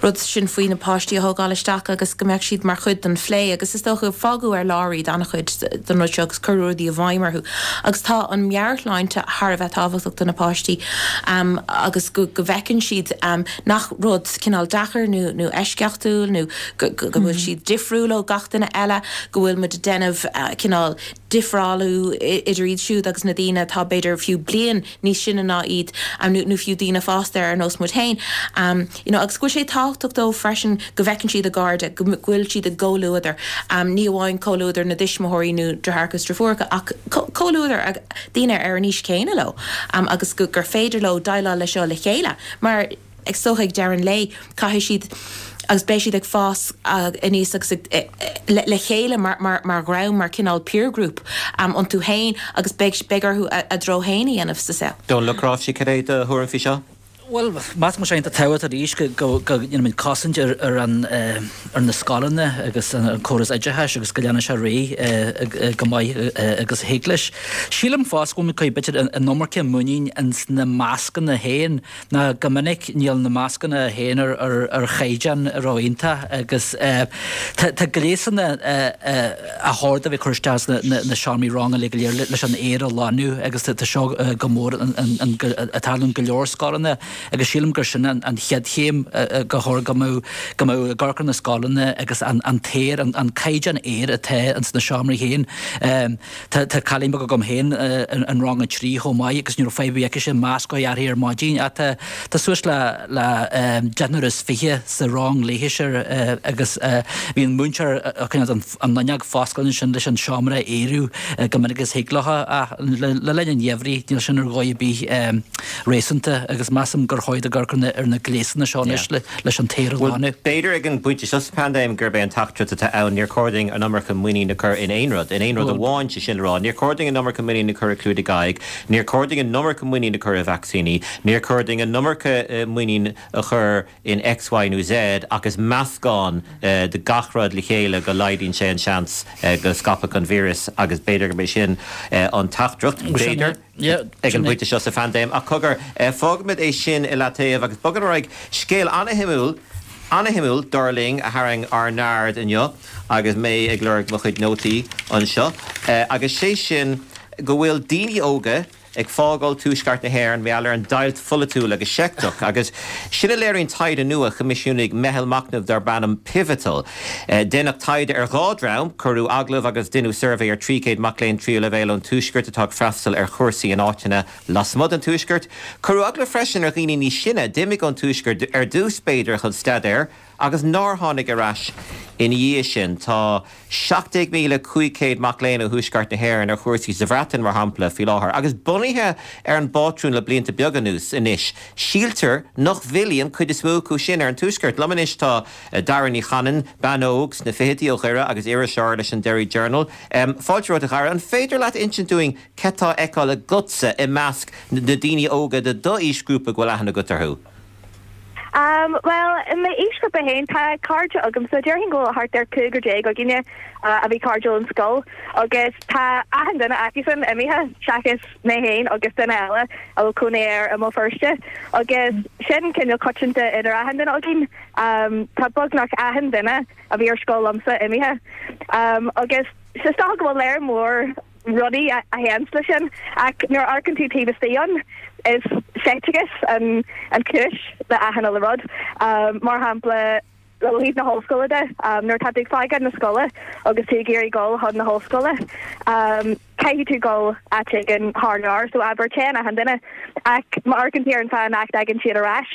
rud sin faoi na páistí a thógáil isteach agus go mbeadh siad mar chuid den phlé agus is dócha, fágadh ar lár iad an-chuid den rud seo agus cuireadh rudaí i bhfeidhm orthu. Agus tá an meabhairshláinte thar a bheith tábhachtach do na páistí agus go go bhfeiceann siad nach rud cineál deacair nó nó eisceachtúil nó go go bhfuil siad difriúil ó gach duine eile, go bhfuil muid ag déanamh cineál. difreálú idir iad siúd agus na daoine atá b'fhéidir fiú bliain níos sine ná iad nó fiú daoine fásta ar nós muid féin. You know, agus go bhfuil sé tábhachtach dóibh freisin go bhfeiceann siad a gcairde, go bhfuil siad i gcomhluadar, ní amháin comhluadar na dtuismitheoirí nó deartháireacha is deirfiúracha ach comhluadar daoine ar an aois chéanna leo agus gur féidir leo déileáil leis seo le chéile mar is dócha ag deireadh an lae caithfidh siad agus beidh siad ag fás aníos agus le chéile mar dhream, mar cineál peer group iontu féin agus beidh orthu a dtreo féin a dhéanamh sa saol. Dónal Ó Cnáimhsí, cad é do thuairim faoi seo? Bhuel, measaim go bhfuil sé iontach tábhachtach arís go ndéanfaimid cosaint ar ar na scoileanna agus an córas oideachais agus go leanfaidh sé ar aghaidh go maith agus a thig leis. Sílim fosta go bhfuil muid ag cur b'fhéidir an iomarca muinín ins na mascanna féin ná go minic níl na mascanna féin ar chaighdeán ró-iontach agus tá gléasanna a chóir a bheith ag cur isteach sna seomraí ranga uilig go léir leis an aer a ghlanadh agus tá seo go mór ag tarlú in go leor scoileanna agus sílim gur sin an chéad chéim go chóir go mbeadh go mbeadh ag amharc ar na scoileanna agus an t-aer an caighdeán aeir atá ins na seomraí féin. Tá cailín beag agam féin in rang a 3 chomh maith agus ní raibh fadhb ar bith aici masc a chur uirthi ar maidin ach tá suas le le deichniúr is fiche sa rang léithise agus bhí an múinteoir ag coinneáil an fhuinneog foscailte ansin leis an seomra a aerú go minic is thig leo ach le linn an gheimhridh níl sin ar dhóigh ar bith réasúnta agus measaim gur chóir dul ag amharc ar na gléasanna seo anois leis an t-aer a ghlanadh. B'fhéidir ag an bpointe seo sa phaindéim gurb é an teachtaireacht atá ann, níor chóir dúinn an iomarca muinín a chur in aon rud, in aon rud amháin, sé sin le rá, níor chóir dúinn an iomarca muinín a chur i clúdaigh aghaidh, níor chóir dúinn an iomarca muinín a chur i vacsaíní, níor chóir dúinn an iomarca muinín a chur in X, Y nó Z ach is meascán de gach rud le chéile go laghdaíonn sé an seans go scaipfeadh an víreas agus b'fhéidir gurb é sin an teachtaireacht, b'fhéidir, ag an bpointe seo sa phaindéim. Ach cogar, fágfaimid é sin i leataobh agus bogfaimid ar aghaidh. Scéal an-shuimiúil, an-shuimiúil, dar linn, a tharraing ár n-aird inniu agus mé ag lorg mo chuid nótaí anseo agus sé sin go bhfuil daoine óga, ag fágáil tuaisceart na hÉireann mar gheall ar an deighilt pholaitiúil agus sheicteach, agus sin a léiríonn taighde nua a choimisiúnaigh meitheal machnaimh darb ainm Pivotal. Deineadh taighde ar dhá dhream, cuireadh agallamh agus deineadh suirbhé ar 300 mac léinn tríú leibhéal ón tuaisceart atá ag freastal ar chúrsaí in áiteanna lasmuigh den tuaisceart. Cuireadh agallamh freisin ar dhaoine níos sine a d'imigh ón tuaisceart ar dtús, b'fhéidir, chun staidéir agus nár tháinig ar ais ina dhiaidh sin. Tá 17,500 mac léinn ó thuaisceart na hÉireann ar chúrsaí sa Bhreatain, mar shampla, faoi láthair, agus bunaithe ar an bpátrún le blianta beaga anuas anois, síltear nach bhfillfidh an chuid is mó acu sin ar an tuaisceart. Liom anois tá Dara Ní Chanainn, bean óg sna fichidí ó Dhoire agus iriseoir leis an Derry Journal. Fáilte romhat, a Dhara. An féidir leat insint dúinn cad tá á fheiceáil agatsa i measc na daoine óga de d'aoisghrúpa go bhfuil aithne agat orthu? Bhuel, i m'aoisghrúpa féin, tá cairde agamsa, déarfainn go bhfuil thart ar 15 againne a bhí cairdiúil in scoil agus tá achan duine acusan imithe seachas mé féin agus duine eile a bhfuil cónaí air i mBéal Feirste agus sin cineál coitianta idir achan duine againn. Tá beagnach achan duine a bhí ar scoil liomsa imithe agus is dócha go bhfuil léar mór rudaí a théanns leis sin ach nuair a amharcann tú taobh istigh ann is seicteachas an an chúis le achan uile rud. Mar shampla ó thaobh na hollscoile de, nuair atá tú ag fágáil na scoile agus tú ag iarraidh dul chun na hollscoile, caithfidh tú dul áit éigin thar lear, so abair téann achan duine ach má amharcann tú ar an fáth nach dtagann siad ar ais,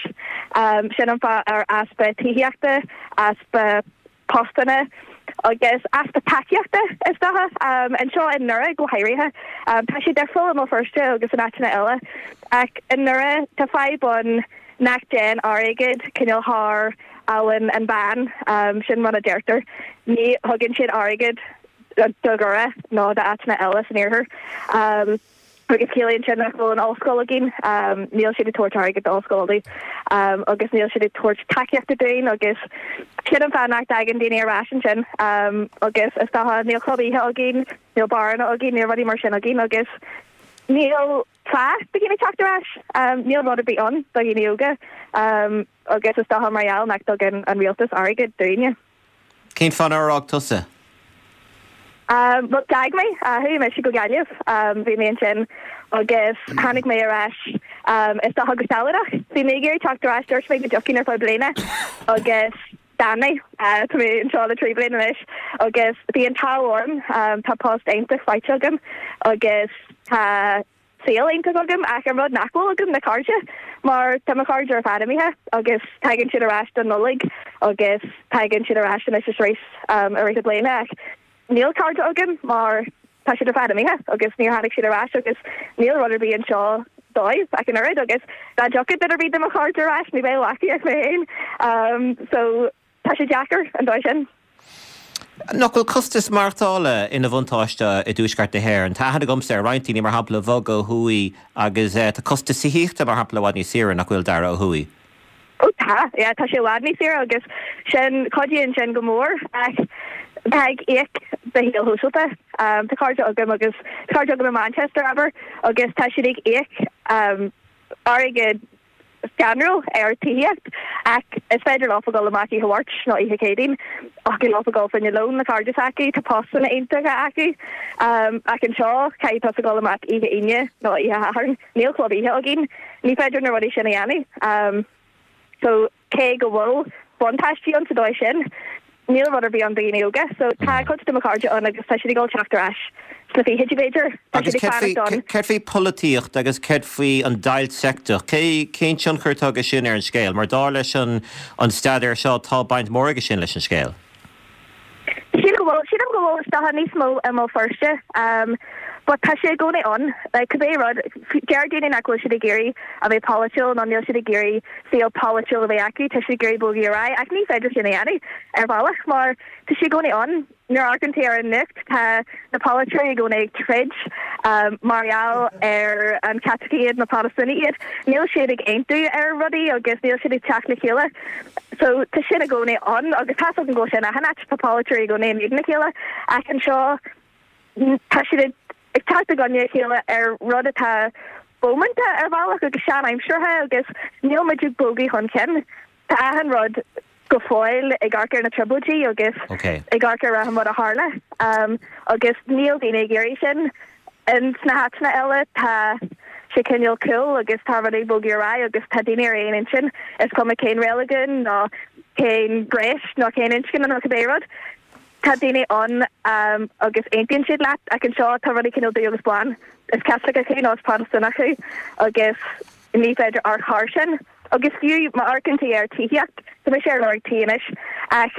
sin an fáth ar easpa tithíochta, easpa postanna agus easpa tacaíochta, is dócha, anseo i nDoire go háirithe. Tá sé difriúil i mBéal Feirste agus in áiteanna eile, ach i nDoire tá fadhb ann nach dtéann airgead cineál thar Abhainn an Bhann, sin rud a deirtear. Ní thugann siad airgead do Dhoire nó d'áiteanna eile san iarthar. Agus ciallaíonn sin nach bhfuil an ollscoil againn, níl siad ag tabhairt airgead d'Ollscoil Uladh agus níl siad ag tabhairt tacaíochta dúinn agus sin an fáth nach dtagann daoine ar ais ansin agus is dócha níl club oíche againn, níl beáranna againn, níl rudaí mar sin againn agus níl fáth do dhaoine teacht ar ais, níl rud ar bith ann do dhaoine óga agus is dócha mar gheall nach dtugann an rialtas airgead dúinne. Cén fáth nár fhág tusa? Bhuel, d'fhág mé. Chuaigh mise go Gaillimh. Bhí mé ansin agus tháinig mé ar ais, is dócha go sealadach. Bhí mé ag iarraidh teacht ar ais, dúirt mé go dtiocfainn ar feadh bliana agus. D'fhan mé. Tá mé anseo le 3 bliana anois agus bhí an t-ádh orm, tá post iontach faighte agam agus tá saol iontach agam ach an rud nach bhfuil agam ná cairde mar tá mo chairde ar fad imithe agus tagann siad ar ais don Nollaig agus tagann siad ar ais anois is arís i rith na bliana ach níl cairde agam mar tá siad ar fad imithe agus níor tháinig siad ar ais agus níl rud ar bith anseo dóibh ach an oiread agus dá dtiocfadh duine ar bith de mo chairde ar ais ní bheadh acu ach mé féin so tá sé deacair an dóigh sin. Nach bhfuil costas maireachtála ina bhuntáiste i dTuaisceart na hÉireann? Tá aithne agamsa ar roinnt daoine, mar shampla, a bhog ó thuaidh agus tá costas tithíochta, mar shampla, i bhfad níos saoire, nach bhfuil, Dara, ó thuaidh? Ó tá, yeah, tá sé i bhfad níos saoire agus sin, cuidíonn sin go mór ach tá ag íoc do shaol shóisialta. Tá cairde agam agus tá cairde agam i Manchester, abair, agus tá siad ag íoc airgead scanrúil ar tithíocht ach is féidir leofa dul amach oíche Mháirt nó oíche Chéadaoin thiocfadh leofa dul fá choinne lón le cairde s'acu, tá postanna iontacha acu ach anseo caithfidh tusa dul amach oíche Aoine nó oíche Shathairn, níl club oíche againn, ní féidir na rudaí sin a dhéanamh. So cé go bhfuil buntáistí ann sa dóigh sin, níl rud ar bith ann do dhaoine óga. So tá cuid de mo chairde ann agus tá siad ag dul teacht ar ais sna fichidí b'fhéidir. Tá Agus siad ag céard faoi, fanacht ann. céard faoi polaitíocht agus céard faoi an deighilt seicteach? Cé, cén tionchar atá aige sin ar an scéal? Mar dar leis an, an staidéar seo tá baint mhór aige sin leis an scéal. Sílim go bhfuil, sílim go bhfuil is dócha níos mó i mBéal Feirste but tá sé i gcónaí ann. Like cibé rud, deir daoine nach bhfuil siad ag iarraidh a bheith polaitiúil nó níl siad ag iarraidh saol polaitiúil a bheith acu, tá siad ag iarraidh bogadh ar aghaidh ach ní féidir sin a dhéanamh ar bhealach mar tá sé i gcónaí ann. Nuair a amharcann tú ar an nuacht tá na polaiteoirí i gcónaí ag troid mar gheall ar an Caitlicigh iad nó Protastúnaigh iad. Níl siad ag aontú ar rudaí agus níl siad ag teacht le chéile. So tá sin i gcónaí ann agus tá's agam go bhfuil sé in achan áit, tá polaiteoirí i gcónaí in éadan a chéile ach anseo tá siad ag teacht i gcoinne a chéile ar rud atá bómánta ar bhealach agus sean-aimseartha agus níl muid ag bogadh chun cinn. Tá achan rud go fóill ag amharc ar na trioblóidí agus ag amharc ar achan rud a tharla agus níl daoine ag iarraidh sin. In sna háiteanna eile tá sé cineál cool agus tá rudaí ag bogadh ar aghaidh agus tá daoine ar aon intinn, is cuma cén reiligiún nó cén ghnéas nó cén inscne nó cibé rud. Tá daoine ann agus aontaíonn siad leat ach anseo tá rudaí cineál dubh agus bán. Is Caitliceach thú nó is Protastúnach thú agus ní féidir amharc thar sin. Agus fiú má amharcann tú ar tithíocht, tá mise ar lorg tí anois ach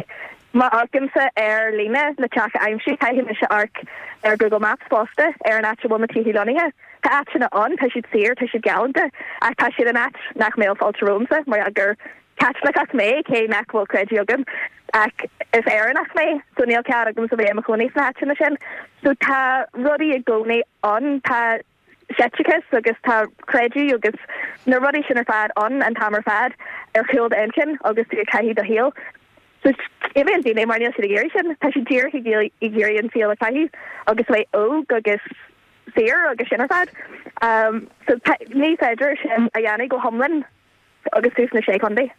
má amharcaimse ar líne le teach a aimsiú, caithfidh mise amharc ar Google Maps fosta ar an áit a bhfuil na tithe lonnaithe. Tá áiteanna ann, tá siad saor, tá siad galánta ach tá siad in áit nach mbeadh fáilte romhamsa mar gheall gur Caitliceach mé, cé nach bhfuil creideamh agam, ach is Éireannach mé, so níl cead agamsa bheith i mo chónaí sna háiteanna sin. So tá rudaí i gcónaí ann, tá seicteachas agus tá creideamh agus na rudaí sin ar fad ann an t-am ar fad ar chúl d'inchinn agus tú ag caitheamh do shaoil. So imíonn daoine mar níl siad ag iarraidh sin, tá siad díreach ag iarraidh an saol a chaitheamh agus a bheith óg agus saor agus sin ar fad. So ní féidir sin a dhéanamh go hiomlán agus tú sna Sé Chontae.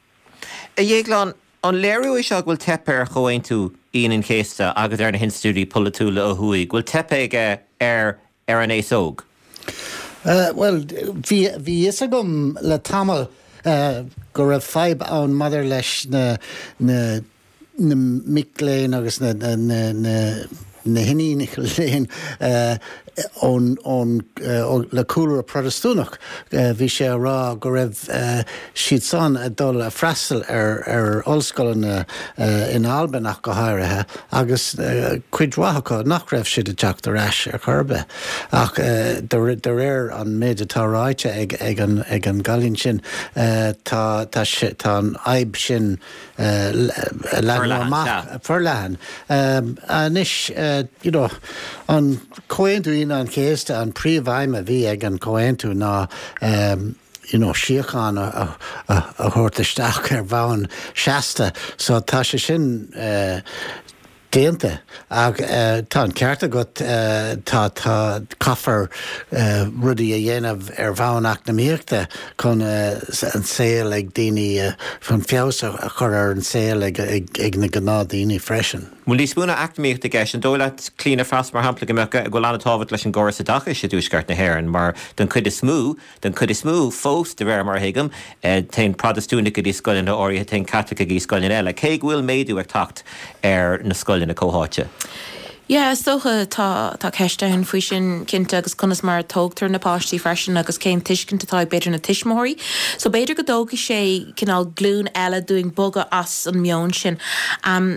A Dhéagláin, an léiriú é seo go bhfuil teipthe ar Chomhaontú Aoine an Chéasta agus ar na hinstitiúidí polaitiúla ó thuaidh, go bhfuil teipthe aige ar ar an aos óg? Bhuel, bhí bhí fhios agam le tamall go raibh fadhb ann maidir leis na na na mic léinn agus na na na na hiníonacha léinn ón ón le cúlra Protastúnach. Bhí sé á rá go raibh siad san ag dul a freastal ar ar ollscoileanna in Albain ach go háirithe agus cuid mhaith acu nach raibh siad ag teacht ar ais ar chor ar bith. Ach de réir an méid atá ráite ag ag an ag an gcailín sin tá tá sé tá an fhadhb sin leathnú amach forleathan. Anois, you know, an Comhaontú Aoine an Chéasta, an príomhaidhm a bhí ag an chomhaontú ná you know, síocháin a thabhairt isteach ar bhonn seasta. So tá sé sin déanta. Ach tá an ceart agat, tá, tá, caithfear rudaí a dhéanamh ar bhonn eacnamaíochta chun an saol ag daoine, chun feabhas a chur ar an saol ag na gnáthdaoine freisin. Bhfuil níos mó ná eacnamaíocht i gceist? An dóigh leat, Clíona Frost, mar shampla, go mbeadh, go bhfuil an-tábhacht leis an gcóras oideachais i dTuaisceart na hÉireann mar den chuid is mó, den chuid is mó fós, de réir mar a thuigim, téann Protastúnaigh go dtí scoileanna áirithe, téann Caitlicigh go dtí scoileanna eile, cé go bhfuil méadú ag teacht ar na scoileanna comhtháite. Yeah, is dócha tá, tá ceist ann faoi sin cinnte agus conas mar a tógtar na páistí freisin agus cén tuiscint atá ag b'fhéidir na tuismitheoirí. So b'fhéidir go dtógfaidh sé cineál glúin eile dúinn bogadh as an meon sin.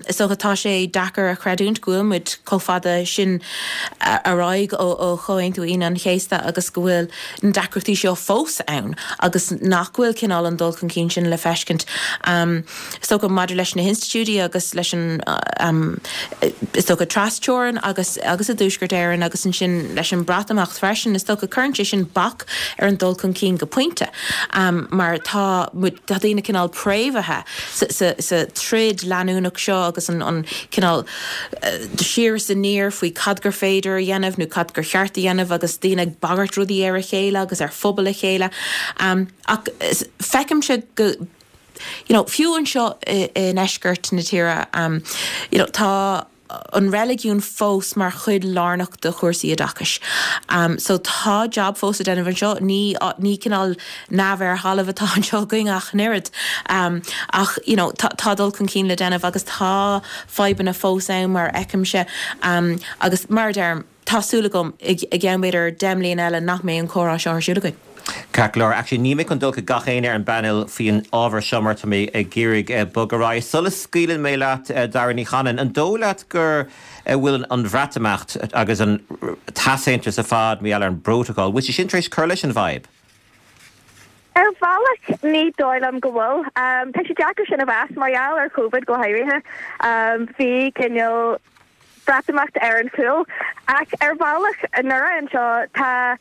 Is dócha tá sé deacair a chreidiúint go bhfuil muid chomh fada sin ar aghaidh ó ó Chomhaontú Aoine an Chéasta agus go bhfuil na deacrachtaí seo fós ann agus nach bhfuil cineál an dul chun cinn sin le feiscint. Is dócha, maidir leis na hinstitiúidí agus leis an, is dócha, tras-teorainn agus agus i dTuaisceart Éireann agus ansin leis an Breatimeacht freisin, is dócha, cuireann sé sin bac ar an dul chun cinn go pointe mar tá muid, tá daoine cineál préamhaithe sa, sa, sa troid leanúnach seo agus an, an cineál siar is aniar faoi cad gur féidir a dhéanamh nó cad gur cheart a dhéanamh agus daoine ag bagairt rudaí ar a chéile agus ar phobail a chéile. Ach feicimse go. You know, fiú anseo i ndeisceart na tíre, you know, tá an reiligiún fós mar chuid lárnach de chúrsaí oideachais. So tá jab fós le déanamh anseo, ní, ní cineál neamh ar thalamh atá anseo againn ach an oiread. Ach, you know, tá, tá dul chun cinn le déanamh agus tá fadhbanna fós ann mar a fheicimse. Agus mar a deirim, Tá súil agam, i gceann b'fhéidir 10 mbliana eile, nach mbeidh an comhrá seo ar siúl againn. Ceart go leor. Actually, níl mé chun dul chuig gach éinne ar an bpainéal faoin ábhar seo mar tá mé ag iarraidh bogadh ar aghaidh. Sula scaoileann mé leat, Dara Ní Chanainn, an dóigh leat go bhfuil an Bhreatimeacht agus an t-easaontas ar fad mar gheall ar an bprótacal, bhfuil sé sin tar éis cur leis an bhfadhb? Ar bhealach, ní dóigh liom go bhfuil. Tá sé deacair sin a mheas, mar gheall ar Covid go háirithe. Bhí cineál. Breatimeacht ar an chúl. Ach ar bhealach, i nDoire anseo, tá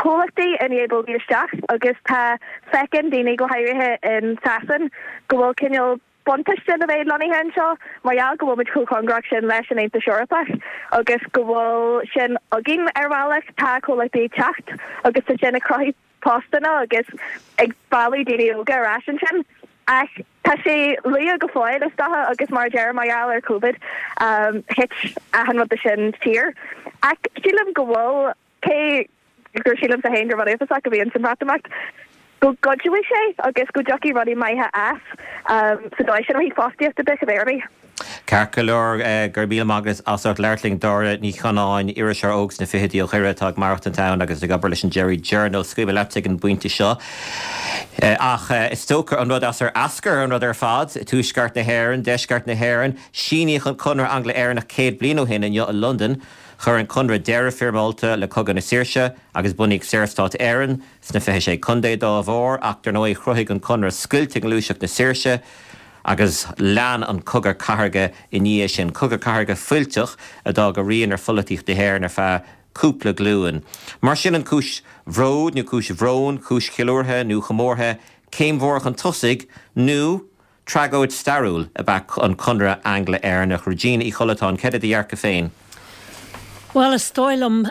comhlachtaí i ndiaidh bogadh isteach agus tá, feiceann daoine, go háirithe in Sasain, go bhfuil cineál buntáiste le bheith lonnaithe anseo mar gheall go bhfuil muid chomh cóngarach sin leis an Aontas Eorpach agus go bhfuil sin againn ar bhealach. Tá comhlachtaí ag teacht agus tá sin ag cruthú postanna agus ag mealladh daoine óga ar ais ansin. Ach tá sé luath go fóill is dócha agus mar a deirim mar gheall ar Covid thit achan rud de sin siar. Ach sílim go bhfuil, cé gur sílimse féin gur rud uafásach a bhí ins an Bhreatimeacht, go gcuideoidh sé agus go dtiocfaidh rudaí maithe as sa dóigh sin ó thaobh fostaíochta de cibé ar bith. Ceart go leor, go raibh míle maith agat as ucht labhairt linn, Dáire Ní Chanáin, iriseoir óg sna fichidí ó Dhoire atá ag maireachtaint ann agus ag obair leis an Derry Journal. Scaoilfidh mé leat ag an bpointe seo. Ach is dócha an rud as ar eascair an rud ar fad, Tuaisceart na hÉireann, Deisceart na hÉireann, síníodh an Conradh Angla-Éireannach 100 bliain ó shin inniu i Londain. Chuir an Conradh deireadh foirmeálta le Cogadh na Saoirse agus bunaíodh Saorstát Éireann sna 26 Contae dá bharr ach dar ndóigh chruthaigh an Conradh scoilt i ngluaiseacht na saoirse Agus lean an cogadh cathartha i ndiaidh sin, cogadh cathartha fuilteach a d'fhág a rian ar pholaitíocht na hÉireann ar feadh cúpla glúin. Mar sin an cúis bhróid nó cúis bhróin, cúis cheiliúrtha nó chomórtha, céim mhór chun tosaigh nó tragóid stairiúil ab ea an Conradh Angla-Éireannach? Regina Uí Chollatáin, céard é do dhearcadh féin? Bhuel, is dóigh liom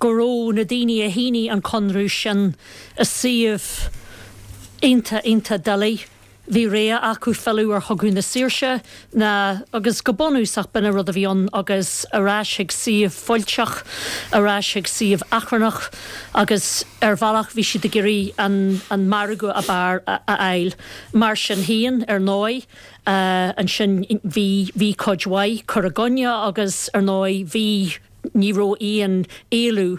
go raibh na daoine a shínigh an conradh sin i suíomh iontach, iontach doiligh. Bhí rogha acu filleadh ar Chogadh na Saoirse ná, agus go bunúsach b'in an rud a bhí ann, agus ar ais chuig suíomh fuilteach, ar ais chuig suíomh achrannach agus ar bhealach bhí siad ag iarraidh an an margadh ab fhearr a fháil. Mar sin féin, ar ndóigh, ansin bhí bhí cuid mhaith cur i gcoinne agus ar ndóigh bhí Ní raibh aon éalú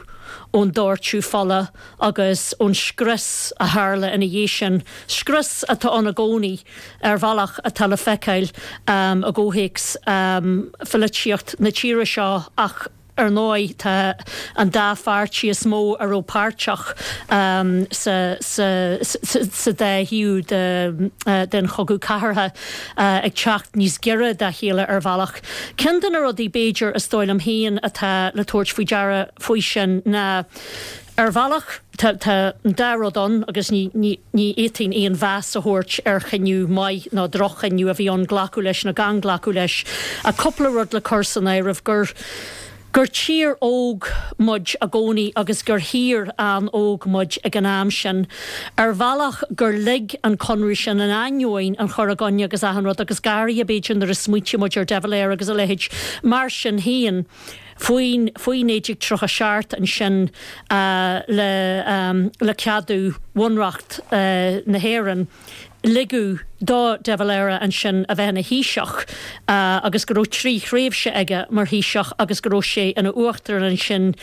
ón doirteadh fola agus ón scrios a tharla ina dhiaidh sin, scrios atá ann i gcónaí ar bhealach atá le feiceáil i gcomhthéacs pholaitíocht na tíre seo ach ar ndóigh tá an dá pháirtí is mó a raibh páirteach sa sa dá thaobh den chogadh cathartha ag teacht níos giorra dá chéile ar bhealach. Ceann de na rudaí, b'fhéidir, is dóigh liom féin atá le tabhairt faoi deara faoi sin ná, ar bhealach, tá tá an dá rud ann agus ní ní ní fhéadfainn aon mheas a thabhairt ar chinneadh maith nó droch-chinneadh a bhí ann glacadh leis nó gan glacadh leis, ach cúpla rud le cur san áireamh gur. Gur tír óg muid i gcónaí agus gur thír an-óg muid ag an am sin. Ar bhealach gur lig an conradh sin, in ainneoin an chur i gcoinne agus achan rud, agus go háirithe b'fhéidir nuair a smaointíonn muid ar De Valera agus a leithéid, mar sin féin, faoin, faoi 1937 ansin le, le ceadú Bhunreacht na hÉireann, ligeadh do De Valera ansin a bheith ina Thaoiseach agus go raibh 3 thréimhse aige mar Thaoiseach agus go raibh sé ina Uachtarán ansin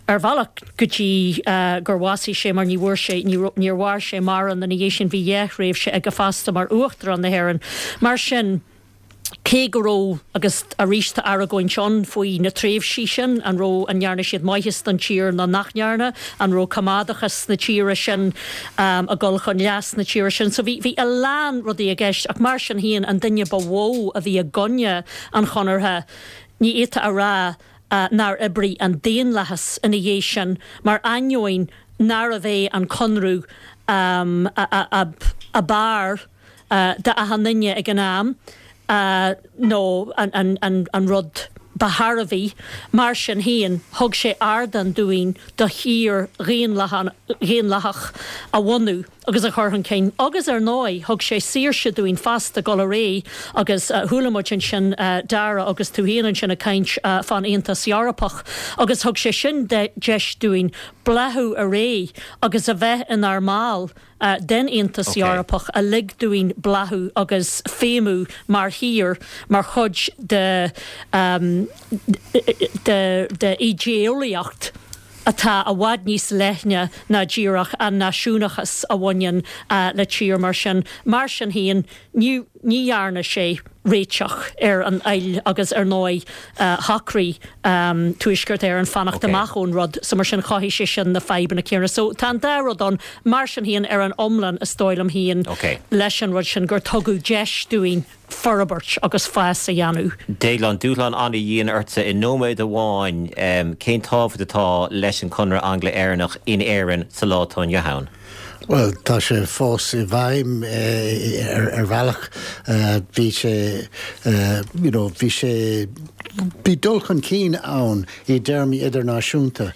ar bhealach go dtí gur bhásaigh sé mar ní bhfuair sé, níor mhair sé mórán ina dhiaidh sin, bhí dhá thréimhse aige fosta mar Uachtarán na hÉireann. Mar sin. cé go raibh, agus arís tá argóint ann faoi na tréimhsí sin, an raibh, an ndearna siad maitheas don tír nó nach ndearna, an raibh coimeádachas na tíre sin ag dul chun leas na tíre sin. So bhí, bhí a lán rudaí i gceist ach mar sin féin an duine ba mhó a bhí i gcoinne an Chonartha, ní fhéadfá a rá nár oibrigh an daonlathas ina dhiaidh sin mar ainneoin nárbh é an Conradh ab fhearr d'achan duine ag an am nó an rud ba thairbhí. Mar sin féin, thug sé ardán dúinn do thír dhaonlathach a bhunú agus a chur chun cinn agus, ar ndóigh, thug sé saoirse dúinn fosta dul ar aghaidh agus chuala muid ansin Dara agus tú féin ansin ag caint fán Aontas Eorpach agus thug sé sin deis dúinn bláthú ar aghaidh agus a bheith inár mball den Aontas Eorpach a lig dúinn bláthú agus feidhmiú mar thír, mar chuid de de idéeolaíocht atá i bhfad níos leithne ná díreach an náisiúnachas a bhaineann le tír mar sin. Mar sin féin, ní Ní dhearna sé réiteach ar an fhoighil agus ar ndóigh shocraigh Tuaisceart Éireann fanacht amach ón rud so mar sin chothaigh sé sin na fadhbanna céanna. So tá an dá rud ann. Mar sin féin ar an iomlán is dóigh liom féin leis an rud sin gur tugadh deis dúinn forbairt agus fás a dhéanamh. Déaglán, dúshlán an-dhian ortsa i nóiméad amháin, cén tábhacht atá leis an Conradh Angla-Éireannach in Éirinn sa lá atá inniu ann? Bhuel, tá sé fós i bhfeidhm ar bhealach. Bhí sé, you know, bhí sé, bhí dul chun cinn ann i dtéarmaí idirnáisiúnta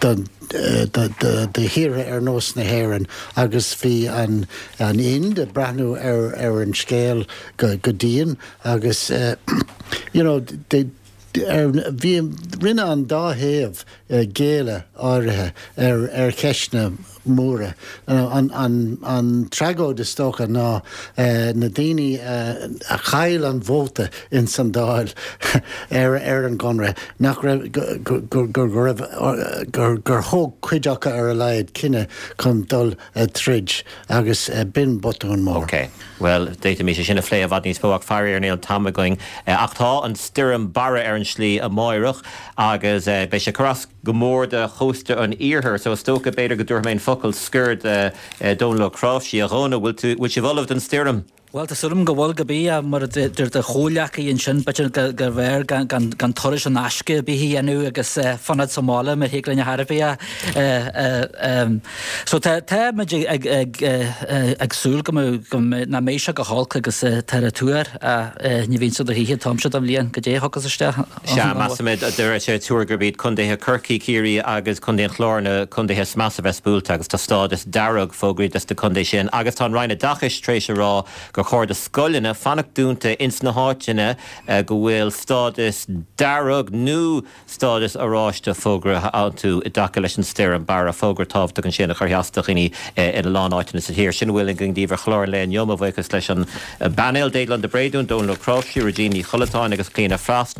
do thíortha ar nós na hÉireann agus bhí an an Ind ag breathnú ar ar an scéal go go dian agus you know, bhí, rinne an dá thaobh géilleadh áirithe ar cheisteanna móra. An tragóid is dócha ná na daoine a chaill an vóta ins an Dáil ar an gConradh, nach raibh, go raibh, gur thóg cuid acu ar a laghad cinneadh chun dul troid agus b'in botún mór. Ok. Bhuel, d'fhéadfaimis é sin a phlé i bhfad níos mó ach faraor níl an t-am againn. Ach tá an stoirm Barra ar an slí amáireach agus beidh sé ag cur as go mór do chósta an iarthair so is dócha b'fhéidir go dtabharfaidh mé an focal scoir do Dhónal Ó Cnáimhsí. A Dhónaill, bhfuil tú, bhfuil sibh ullamh don stoirm? Bhuel, tá súil agam go bhfuil, cibé, mar a deir do chomhghleacaí ansin, b'fhéidir gurbh fhearr gan turas in aisce ar bith a dhéanamh agus fanacht sa mbaile mar thig linn ar chor ar bith. So tá tá muid ag súil go mbeidh, nach mbeidh sé go holc agus tá ar tuar ní bhíonn sé do choíche an t-am seo den bhliain, goidé a thiocfas isteach. Sea, measaimid, de réir tuar gurb iad contaetha Chorcaí, Ciarraí agus contae an Chláir na contaetha is measa a bheas buailte agus tá stádas dearg fógraithe dos na contaetha sin agus tá an Roinn Oideachais tar éis a rá gur chóir do scoileanna fanacht dúnta ins na háiteanna go bhfuil stádas dearg nó stádas oráiste fógraithe iontu i dtaca leis an stoirm Barra. Fógra tábhachtach ansin a chuirfidh as do dhaoine ina lán áiteanna sa tír. Sin a bhfuil againn daoibh ar chlár an lae inniu. Mo bhuíochas leis an bpainéal, Déaglán de Bréadún, Dónal Ó Cnáimhsí, Regina Ní Chollatáin agus Clíona Frost.